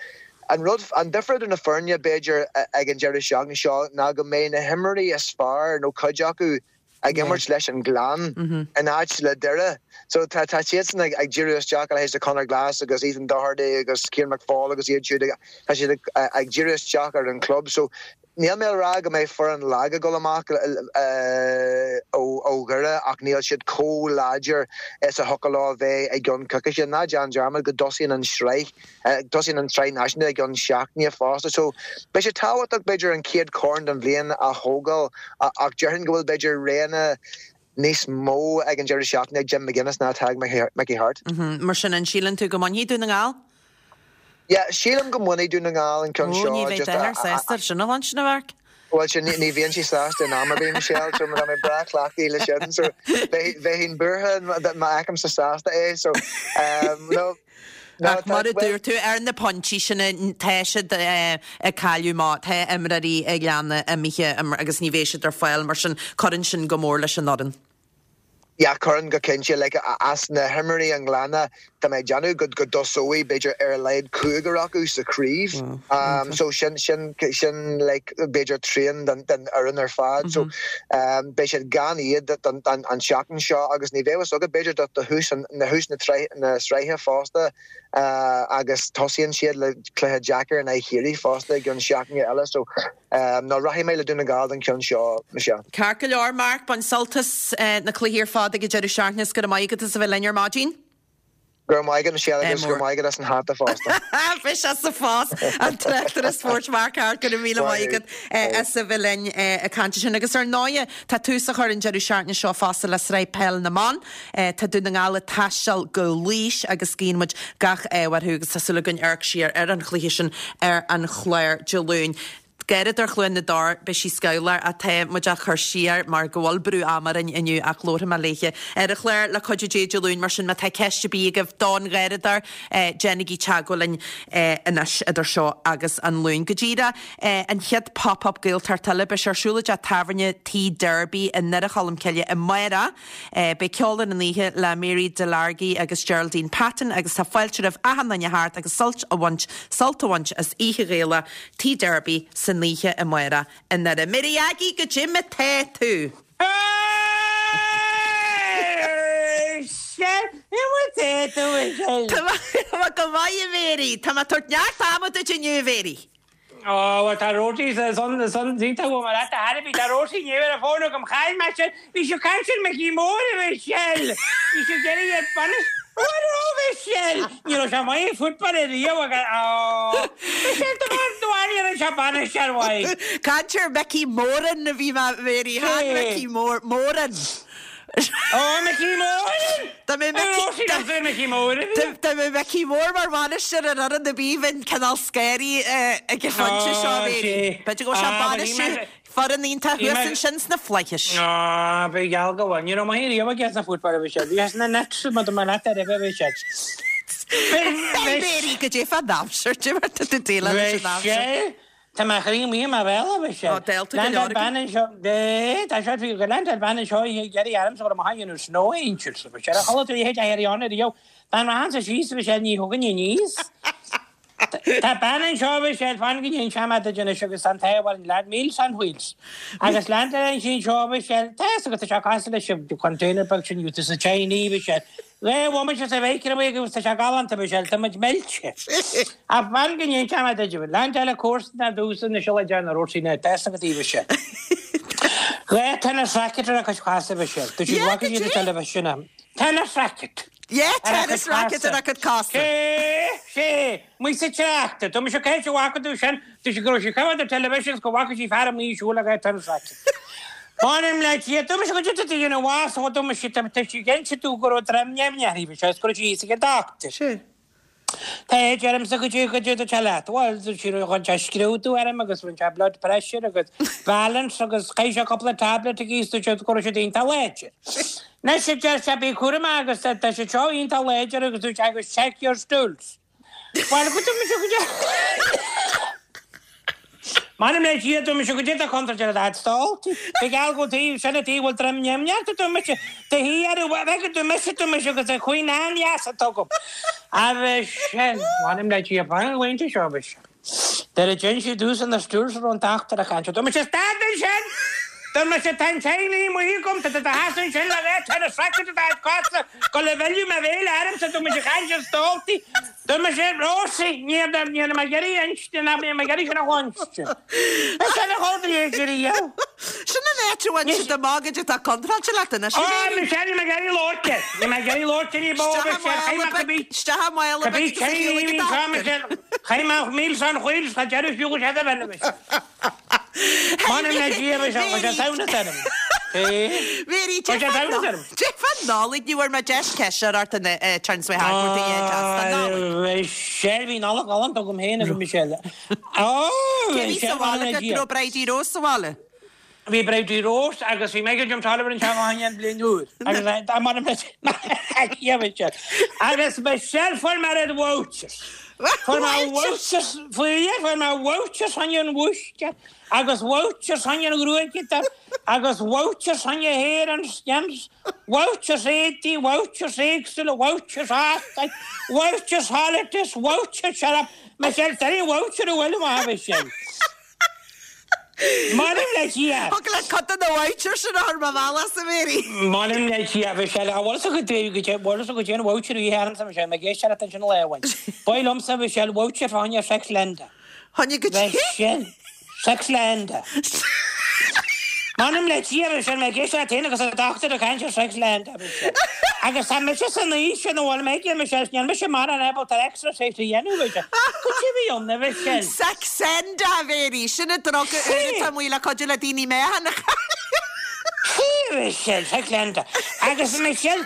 An rud, an difear idir na foirne b'fhéidir ag an deireadh seachtaine seo ná go mbeidh na himreoirí is fearr nó cuid acu ag imirt leis an gClann in áit le Doire. So tá tá siadsan ag ag díriú isteach a leithéid de Conor Glass agus Ethan Doherty agus Cian McFaul agus iad siúd ag tá siad ag ag díriú isteach ar an chlub. So níl mé ag rá go mbeidh foireann lag ag dul amach ó ó Dhoire ach níl siad chomh láidir is a thiocfadh leo a bheith i gceann coicíse. Ná déan dearmad go dtosaíonn an sraith Tosaíonn an tSraith Náisiúnta i gceann seachtaine fosta so beidh sé tábhachtach b'fhéidir an chéad chorn den bhliain a thógáil ach déarfainn go bhfuil b'fhéidir roghanna níos mó ag an deireadh seachtaine ag Jim McGuinness ná atá ag Mickey Harte. Mar sin, an síleann tú go mbainfidh Dún na nGall? Yeah, sílim go mbainfidh Dún na nGall an ceann seo. Ó, ní bheidh d'athair sásta sin a chluinstin, a Mharc. Bhuel, sin, ní bhíonn sé sásta in am ar bith, Michelle, so tá mé breá cleachtaithe le sin, so bheinn buartha má fheicimse sásta é, so no. Ach mar a dúirt tú, ar na pointí sin, tá siad ag cailleadh má tá imreoirí an Ghleanna imithe agus ní bheidh siad ar fáil, mar sin cuireann sin go mór leis an fhoireann. Yeah, cuireann go cinnte. Like, as na himreoirí an Ghleanna, tá mé ag déanamh go go dtosóidh b'fhéidir ar a laghad cúigear acu sa chraobh. Um, so sin, sin, sin like, b'fhéidir trian den, den fhoireann ar fad. So um, beidh siad gan iad don, don, an tseachtain seo agus ní bheidh fhios agat b'fhéidir do, do thús an, na thús na, na sraithe fosta uh, agus tosaíonn siad le cluiche deacair in aghaidh Chiarraí fosta i gceann seachtaine eile. So No, rachaidh mé le Dún na nGall don cheann seo, Michelle. Ceart go leor, Mark, bain sult as na cluichí ar fad ag an deireadh seachtaine is go raibh maith agat as a bheith linn ar maidin. Go raibh maith agat, Michelle, agus go raibh maith agat as an hata fosta. Bhí sé sa phost, an tráchtaire spóirt Mark Harte, go raibh míle maith agat as a bheith linn ag caint ansin. Agus ar ndóighe, tá tús á chur an deireadh seachtaine seo fosta le Sraith Peil na mBan. Tá Dún na nGall ag taisteal go Laois agus guíonn muid gach ádh orthu agus tá súil againn amharc siar ar an chluiche sin ar an chlár Dé Luain. Garradóir Chluain na dTor, beidh sí scamhlach ach tá muid á cur siar mar go bhfuil brú ama orainn inniu ach labharfaidh mé léithe ar an chlár le cuidiú Dé Dé Luain mar sin má tá ceist ar bith agaibh don Gharradóir déanaigí teagmháil linn anois idir seo agus an Luan. Go díreach an chéad Pop Up Gaeltacht eile beidh sé ar siúl i dteach tábhairne Tigh Derby i nDoire Cholm Cille amárach. Beidh ceol ar an oíche le Mary Delargy agus Geraldine Patton agus tá fáilte roimh achan duine theacht agus sult a bhaint sult a bhaint as Oíche Ghaelach Tigh Derby san oíche amárach i nDoire. Mary Aggie, goidé mar tá tú? Tá mé go maith a Mary! Tá mé ag tabhairt neart ama duit inniu a Mhary! Ó, bhuel, tá Róisín san, san, iontach uaim ar fhad, a Harry, tá Róisín Ní ar an bhfón agam, chaill mé sin, bhí sí ag caint ar Mickey Mór, a Mhichelle, bhí sí ag iarraidh ar bainis, bhuel, ó, Mhichelle, ní raibh sé maith ag football ariamh agus, ó, Michelle, do bharr, do bharr, ní raibh sé bainisteoir mhaith. Caint ar Mickey Moran a bhí mé, Mary, chan Mickey Mór, Moran. Ó, Mickey Moran! Dá mbeadh Mickey, dá, Mickey Mór a bhí. Dá mbeadh Mickey Mór mar bhainisteoir ar fhoireann ar bith bheinn cineál scanraithe ag an phointe seo, a Mhary. B'fhéidir go bhfuil sé ag bainistiú foireann iontach thuas ansin sna flaithis. Á, ba gheall go bhfuil. Ní raibh maith riamh aige sna football a bhí sé. Bhí sé sna nets, má tá mé leat ar a bhí sé. Mary, goidé fán aimsir, goidé mar tá tú ag déileáil leis an aimsir. Tá mo chroí amuigh i mo bhéal, a Mhichelle. Ó, dálta go leor Leaindeáil bean anseo, eh, tá seo faoi, leaindeáil bean anseo ag iarraidh ormsa go raibh mo dhéanamh snow angels, a Mhichelle. Chuala tú a leithéid a iarraidh ann ariamh. Dá rachainnse síos, a Mhichelle, ní thiocfainn aníos. Tá bean anseo, a Mhichelle, fan go n-inseoidh mé duit anois agus tá an t-ádh orainn, leaid Meals on Wheels. Agus leaindeáil sí anseo, a Mhichelle, tá fhios agat, tá sé cosúil leis an container beag sin, you, sa Chinese, a Mhichelle. Dhá bhomaite sa mhicreabhaigh agus tá sé galánta, Michelle, tá muid millte. Ach fan go n-inseoidh mé duit, leaindeáil comharsan ar dtús anois le déanamh rud sin tá fhios agat a Mhichelle. Dhá tennis racket ar a cuid cosa, Michelle. Dúirt siad Yeah, bhfaca siad an television am. Tennis racket! Yeah, Ar a tennis cuid racket cosa. ar a cuid cosa. Sé, sé, amuigh sa trácht. Dúirt mise cá háit a bhfaca tú sin, dúirt sí go raibh sí coimhéad ar television is go bhfaca sí fear amuigh ag siúl le dhá tennis racket. M'anam le Dia, dúirt mise goidé tá tú a dhéanamh as, ó dúirt mise tá sí ag inse domh go raibh droim nimhneach uirthi is go raibh sí thíos ag an doctor. Sé. Tá a deirimse goidé goidé tá sé leat. Bhuel, dúirt sí rinne sé scrúdú orm agus rinne sé blood pressure agus balance agus chaith sé cúpla tablet aici is dúirt sé go raibh siad iontach láidir. Anois a deir sé bí cúramach agus tá siad seo iontach láidir agus dúirt sé agus check your stools. Bhuel, go dúirt mise goidé M'anam le Dia, dúirt mise goidé tá contúirt ar a dhaid stól. Ba gheall go taobh sin an taobh bhfuil droim nimhneach dúirt mise do shuí ar an bheidh go dúirt mise dúirt mise agus an chuing an-dheas atá agam. Agus sin, m'anam le Dia, fan go bhfaigheann tú seo, mise. Nuair a d'fhionn sí domhsa na stools a raibh an dochtúir ag caint, dúirt mise, Stad ansin! Dúirt mise, Tá an Chinese amuigh agam, tá tú do sheasamh ansin le dhá tennis racket i do chuid cosa, go le mhilleadh mo bhéil ormsa, dúirt mise, caint ar stóltaí. Dúirt mise, Rosie, ní raibh mé ag iarraidh inste, nach mbeidh mé ag iarraidh sin a chluinstin. Sin a chomh dlí Sin an áit a bhain siad amach goidé atá contráilte leat anois, Ó, a Mhéirí. Michelle, níl mé ag iarraidh labhairt air. Níl mé ag iarraidh labhairt air ní bó, Isteach i Michelle, chaith mála mé beag, cibé, isteach i mála cibé beag agus a céim chéile ní go bhíonn seo, dochtúir. Michelle. Chaith mé Meals on Wheels, cha deireadh fiú go sé do bhean, Michelle. M'anam le Dia, Michelle, tá sé samhnas orm. Mhéirí, Tá sé samhnas orm. Cad é fán Nollaig, ní bhfuair mé deis ceist a chur ort an turns way hard, a Nollaig. Michelle, bhí Nollaig ghalánta agam féin agus Michelle. Ó, Cé bhí sa Michelle, bhaile m'anam le agat? Dia. Raibh Bridie Rose sa bhaile? Bhí Bridie Rose agus bhí Michael Jim Tolliver anseo fá choinne an bhliain úr. Agus m'anam le Dia, Michelle. Agus Michelle fuair mé red vouchers. Fuair mé vouchers, fuair fuair mé vouchers fá choinne an bhúistéir agus vouchers fá choinne an ghruaigeadóir agus vouchers fá choinne hair and skins, vouchers éadaí, vouchers éagsúla, vouchers óstáin, vouchers holidays, vouchers shut up. Michelle, tá aon voucher a bhfuil amach, Michelle. M'anam le Dia! Thug le cuid de na vouchers sin a chur mo bhealach a Mhéirí. M'anam le Dia, a Mhichelle, a bhfuil fhios agat goidé, bhfuil fhios agat goidé an voucher a bhí ormsa, a Mhichelle, mé ag éisteacht leat ansin lá amháin. Ba mhaith liomsa, a Mhichelle, voucher fá choinne Sexlenda. Choinne goidé? Michelle, Sexlenda. M'anam le Dia, a Mhichelle, mé ag éisteacht leat féin agus an dochtúir ag caint ar Sexlenda, a Mhichelle. Agus tá mise san aois sin a bhfuil mé aige, a Mhichelle, níl mise mórán ábalta exercise a dhéanamh, a Mhichelle. Goidé a bhí ann, a Mhichelle? Saxenda, a Mhéirí, sin an druga úr atá amuigh le cuidiú le daoine meáchan a chailleadh. Sea, a Mhichelle, Saxenda. Agus, a Mhichelle,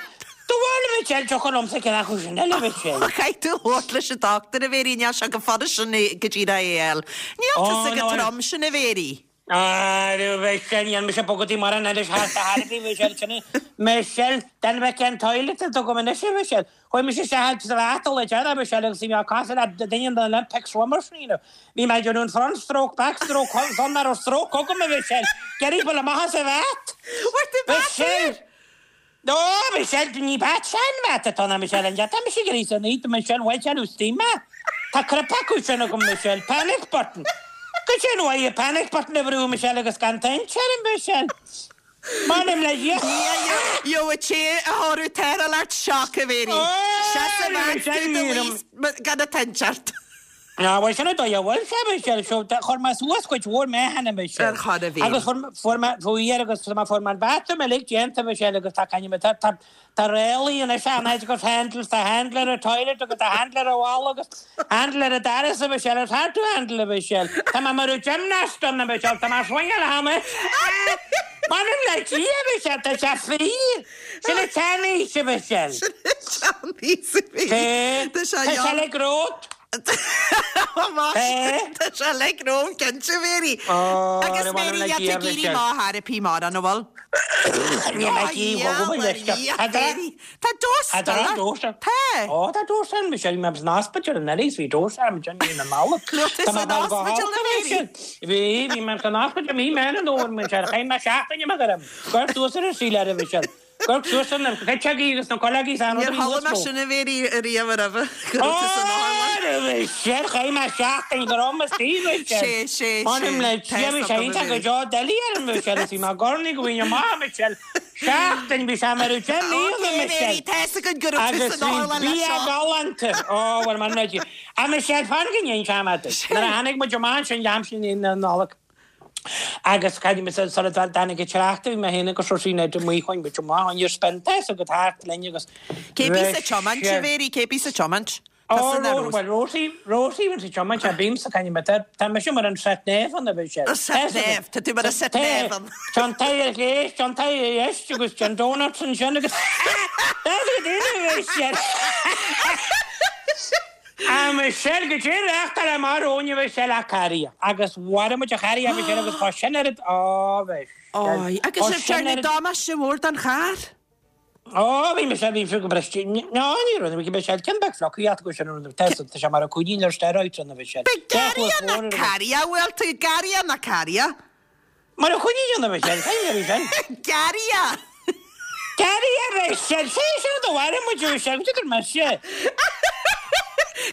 do bhfuil, a Mhichelle, tiocfaidh liomsa ceann acu sin eile, a Mhichelle. Caithfidh tú labhairt leis an dochtúir, a Mhéirí, níl sé chomh fada sin go dtí é a fháil. Níl tusa chomh trom sin, a Mhéirí. A Mhichelle, níl mise bogadaí mar an anois thart a thairbhí, Michelle, sin é. Michelle, den bheith cén toilet a dtugaim anois, a Mhichelle. Chuaigh mise isteach sa bhath le deireadh, Michelle, agus bhí mé cosúil le duine de na Olympic swimmers, you know. Bhí mé ag déanamh an front stroke, back stroke, san nach raibh stroke agam, a Mhichelle. Ag iarraidh dul amach as an bhath. Bhfuair tú bath Michelle! úr? Ó, Michelle, ní bath sean-bhath atá ann, Michelle, an tá mise ag iarraidh san oíche, Michelle, bhuel, sin ús mé. Tá crip acu sin agam, Michelle, panic button. Goidé an uaidh panic button a bhrú, Michelle, agus gan toint orm, Michelle. M'anam le Dia. Gheobhaidh té a thabharfadh tarrtháil ort shock, a Mhéirí. Seas i bhfad tú do luí gan an toint ort. Ná, bhuel, sin an dóigh a bhfuil sé, Michelle, so chuir mé suas cuid mhór meáchain, a Michelle. Ar chor a bhí. Agus fuair mé, fuair agus tá mé, fuair mé an bathroom uilig déanta, Michelle, agus tá, caithfidh mé, tá, tá, tá ráillí anois ann agus handles, tá handle ar an toilet agus tá handle ar an bhalla agus handle ar an doras, a Michelle, it's hard to handle, a Michelle. Tá mé mar gymnast ann, a Michelle, tá mé ag swingáil cheana. M'anam le Dia, a Michelle, tá sé fíor. Sin an tseanaois, a Michelle. Sin an tseanaois, a bhí. Tá Tá sé sé le grót. Tá sé like romham cinnte, Mary. Agus Mary, níl tú ag éirí maith ar bith mar an bhfuil? Níl mé ag éirí go bhfuil leis. Tá dós stalla. Tá. Ó tá dós ann, Michelle, bhí mé san ospidéal anuraidh is bhí dós orm ansin mí na Nollag. Raibh tú san ospidéal a Mary? Bhí, bhí mé san ospidéal mí Meán an Fhómhair, Michelle, chaith mé seachtain amach orm. Cuir suas ar an saol ar a Michelle. Cuir suas ar na cuiteogaí agus na cuileogaí is Níor chuala mé sin a Mary ariamh roimhe go raibh tú san otharlann. Ó, Michelle, chaith mé seachtain go raibh mo saol, Michelle. Sé, sé, sé. M'anam le Dia, bhí sé iontach go deo doiligh orm, Michelle, is bhí mé ag urnaí go bhfaighinn amach, Michelle. Seachtain, bhí sé mar a 10,000 Michelle. Tá's againn go raibh tú Agus san bhí otharlann leis bia seo. galánta. Ó, bhuel, m'anam le Dia. A Michelle, fan go n-inseoidh mé duit. Nuair a tháinig muid amach ansin aimsir na Nollag agus caidé mé sula dtáinig an trácht, bhí mé féin agus Róisín Ned amuigh, chuaigh muid amach, on your spin, tá's agat thart linn agus Cé bíos ag tiomáint, a Mhary, cé bíos ag tiomáint? Ó, bhuel, Rosie, Rosie bhíonn sa tiomáint, tá bímsa, caithfidh mé, tá, tá mise mar an sat nav ann, a Mhichelle. An sat nav, tá tú mar an sat nav ann. Tá an t-aghaidh ar chlé, tá an t-aghaidh ar dheis agus tá an donuts ansin agus That's a daoine, a Mhichelle. A Mhichelle, goidé reáchtáil amach romhainn, a Mhichelle, ach carria. Agus mharaigh muid an carria, a Mhichelle, agus tá sin ar, ó, Mhichelle. Ói, agus sibh ag déanamh damáiste mór don charr. Ó, bhí mise, bhí mise go briste. Ná, ní raibh, bhí mise, ceann beag fliuchaíocht acu sin, tá tá sé mar a cúinín ar steroids ann, a bhí sé. B'é garraidhe ná carria, bhfuil tú, garraidhe ná carria? Mar a cúinín ann, a bhí sé, cén bhí sin? Garraidhe! Garraidhe, a bhí sé, sé sin do mharaigh muid, a bhí sé, go dtugann mise.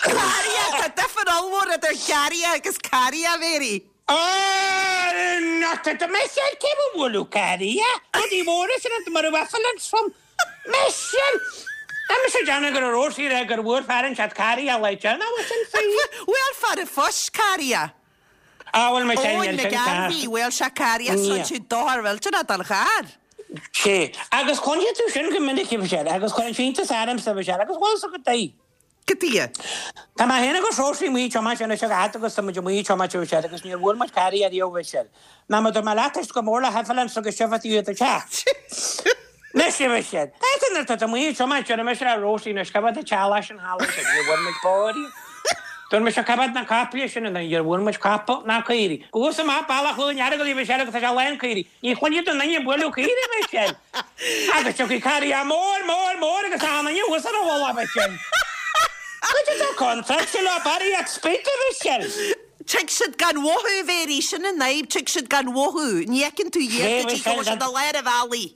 Carria, tá difear ollmhór idir garraidhe agus carria, a Mhéirí. Not at Michelle, cé ba bhualadh carria? Rudaí móra sin iontu mar a bheadh an trom. Michelle! Tá mise ag déanamh go raibh Rosie ag rá gur bhuail fear inteacht carria le déanamh bhfuil sin fíor? Bhuail fear an phoist carria. Ah bhuel Michelle Eoin níl sin ceart. McGarvey, bhuail sé carria Ní. so tú dochar mhillteanach don charr. Sé. Agus cluinfidh tú sin go minic a Mhichelle agus cuireann sé iontas ormsa a Mhichelle agus bhfuil fhios agat goidé. Goidé. Tá mé féin agus Róisín amuigh ag tiomáint anois a fhad agus tá muid amuigh ag tiomáint a Mhichelle agus níor bhuail muid carria ariamh a Mhichelle. Ná mar dúirt mé leat éist go mór le hEvelyn agus sibh i do theach. Anois a Mhichelle. Tá nuair atá tú amuigh ag tiomáint deir mise le Róisín anois cá bhfad an teaghlach sin thall ansin níor bhuail muid bó ariamh. Dúirt mise cá bhfad na caiple sin ann níor bhuail muid capall ná caoirigh. Thuas amach bealach Chluain Earagail a Mhichelle agus tá sé lán caoirigh. Ní chluinfidh tú aon duine ag bualadh caoirigh a Mhichelle. Agus tiocfaidh carria mór, mór, mór agus achan duine thuas ar a mhullach, a Mhichelle. Goidé atá contráilte leo barraíocht spid, a Mhichelle. Tig siad gan mhothú, a Mhéirí, sin an fhadhb, tig siad gan mhothú. Ní fheiceann tú iad go dtí go bhfuil siad i lár an bhealaigh.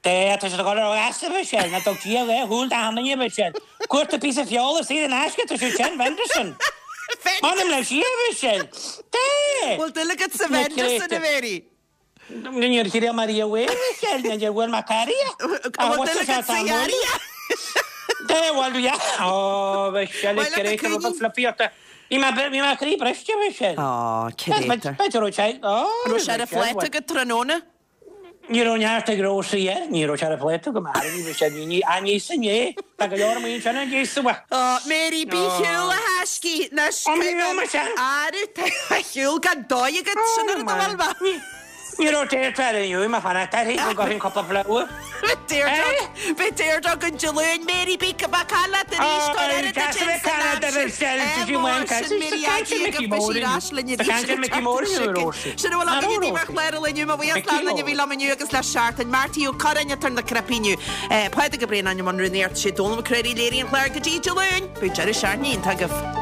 Dé, tá siad ag dul ar ais, a Mhichelle, ná dug Dia dhá shúil d'achan duine, a Mhichelle. Cuarta píosa feola saor in aisce, tá siad sin, Venderson. M'anam le Dia, a Mhichelle. Dé! Bhfuil dúil agat sa Venderson, a Mhéirí? Níor thriail mé riamh é, Michelle, níor bhuail mé carria. An bhfuil dúil agat sa gharria? Dé, bhuel, yeah. Ó, Michelle, Bhuel, céard é rud flippíochta. Bhí mé, bhí mé croí briste, Michelle. Ó, céard é? B'fhéidir raibh sé, ó, Raibh sé ar a phláta agat tráthnóna? Ní raibh neart ag Rósaí air, ní raibh sé ar a phláta agam, aire, ní raibh sé, ní, ní, á, ní sin é, tá go leor amuigh ansin a d'íosfadh. Ó, Mary, bí ar shiúl a thaiscí, anois, Ó, ní raibh mise. Aire, tá ar shiúl gan dóigh agat, sin an rud a bhfuil mé. Ní raibh Deirdre ar inniu, má fanacht uirthi, go gcuirfinn cúpla flower. Deirdre, beidh Deirdre againn Dé Luain, Mary, bí bacáil leat arís, tá ar oiread duit ins an aimsir. Sin Mary Aggie agus beidh sí ar ais linn arís an tseachtain seo chugainn. Sin a bhfuil againn daoibh ar chlár an lae inniu. Mo bhuíochas le duine a bhí liom inniu agus le seachtain. Marty Ó Curráin atá ar na cnaipí inniu. Pádraig Ó Braonáin i mbun rúnaíochta, sé Dónal Mac Craith a léirigh an clár go dtí Dé Luain. Beidh deireadh seachtaine iontach agaibh.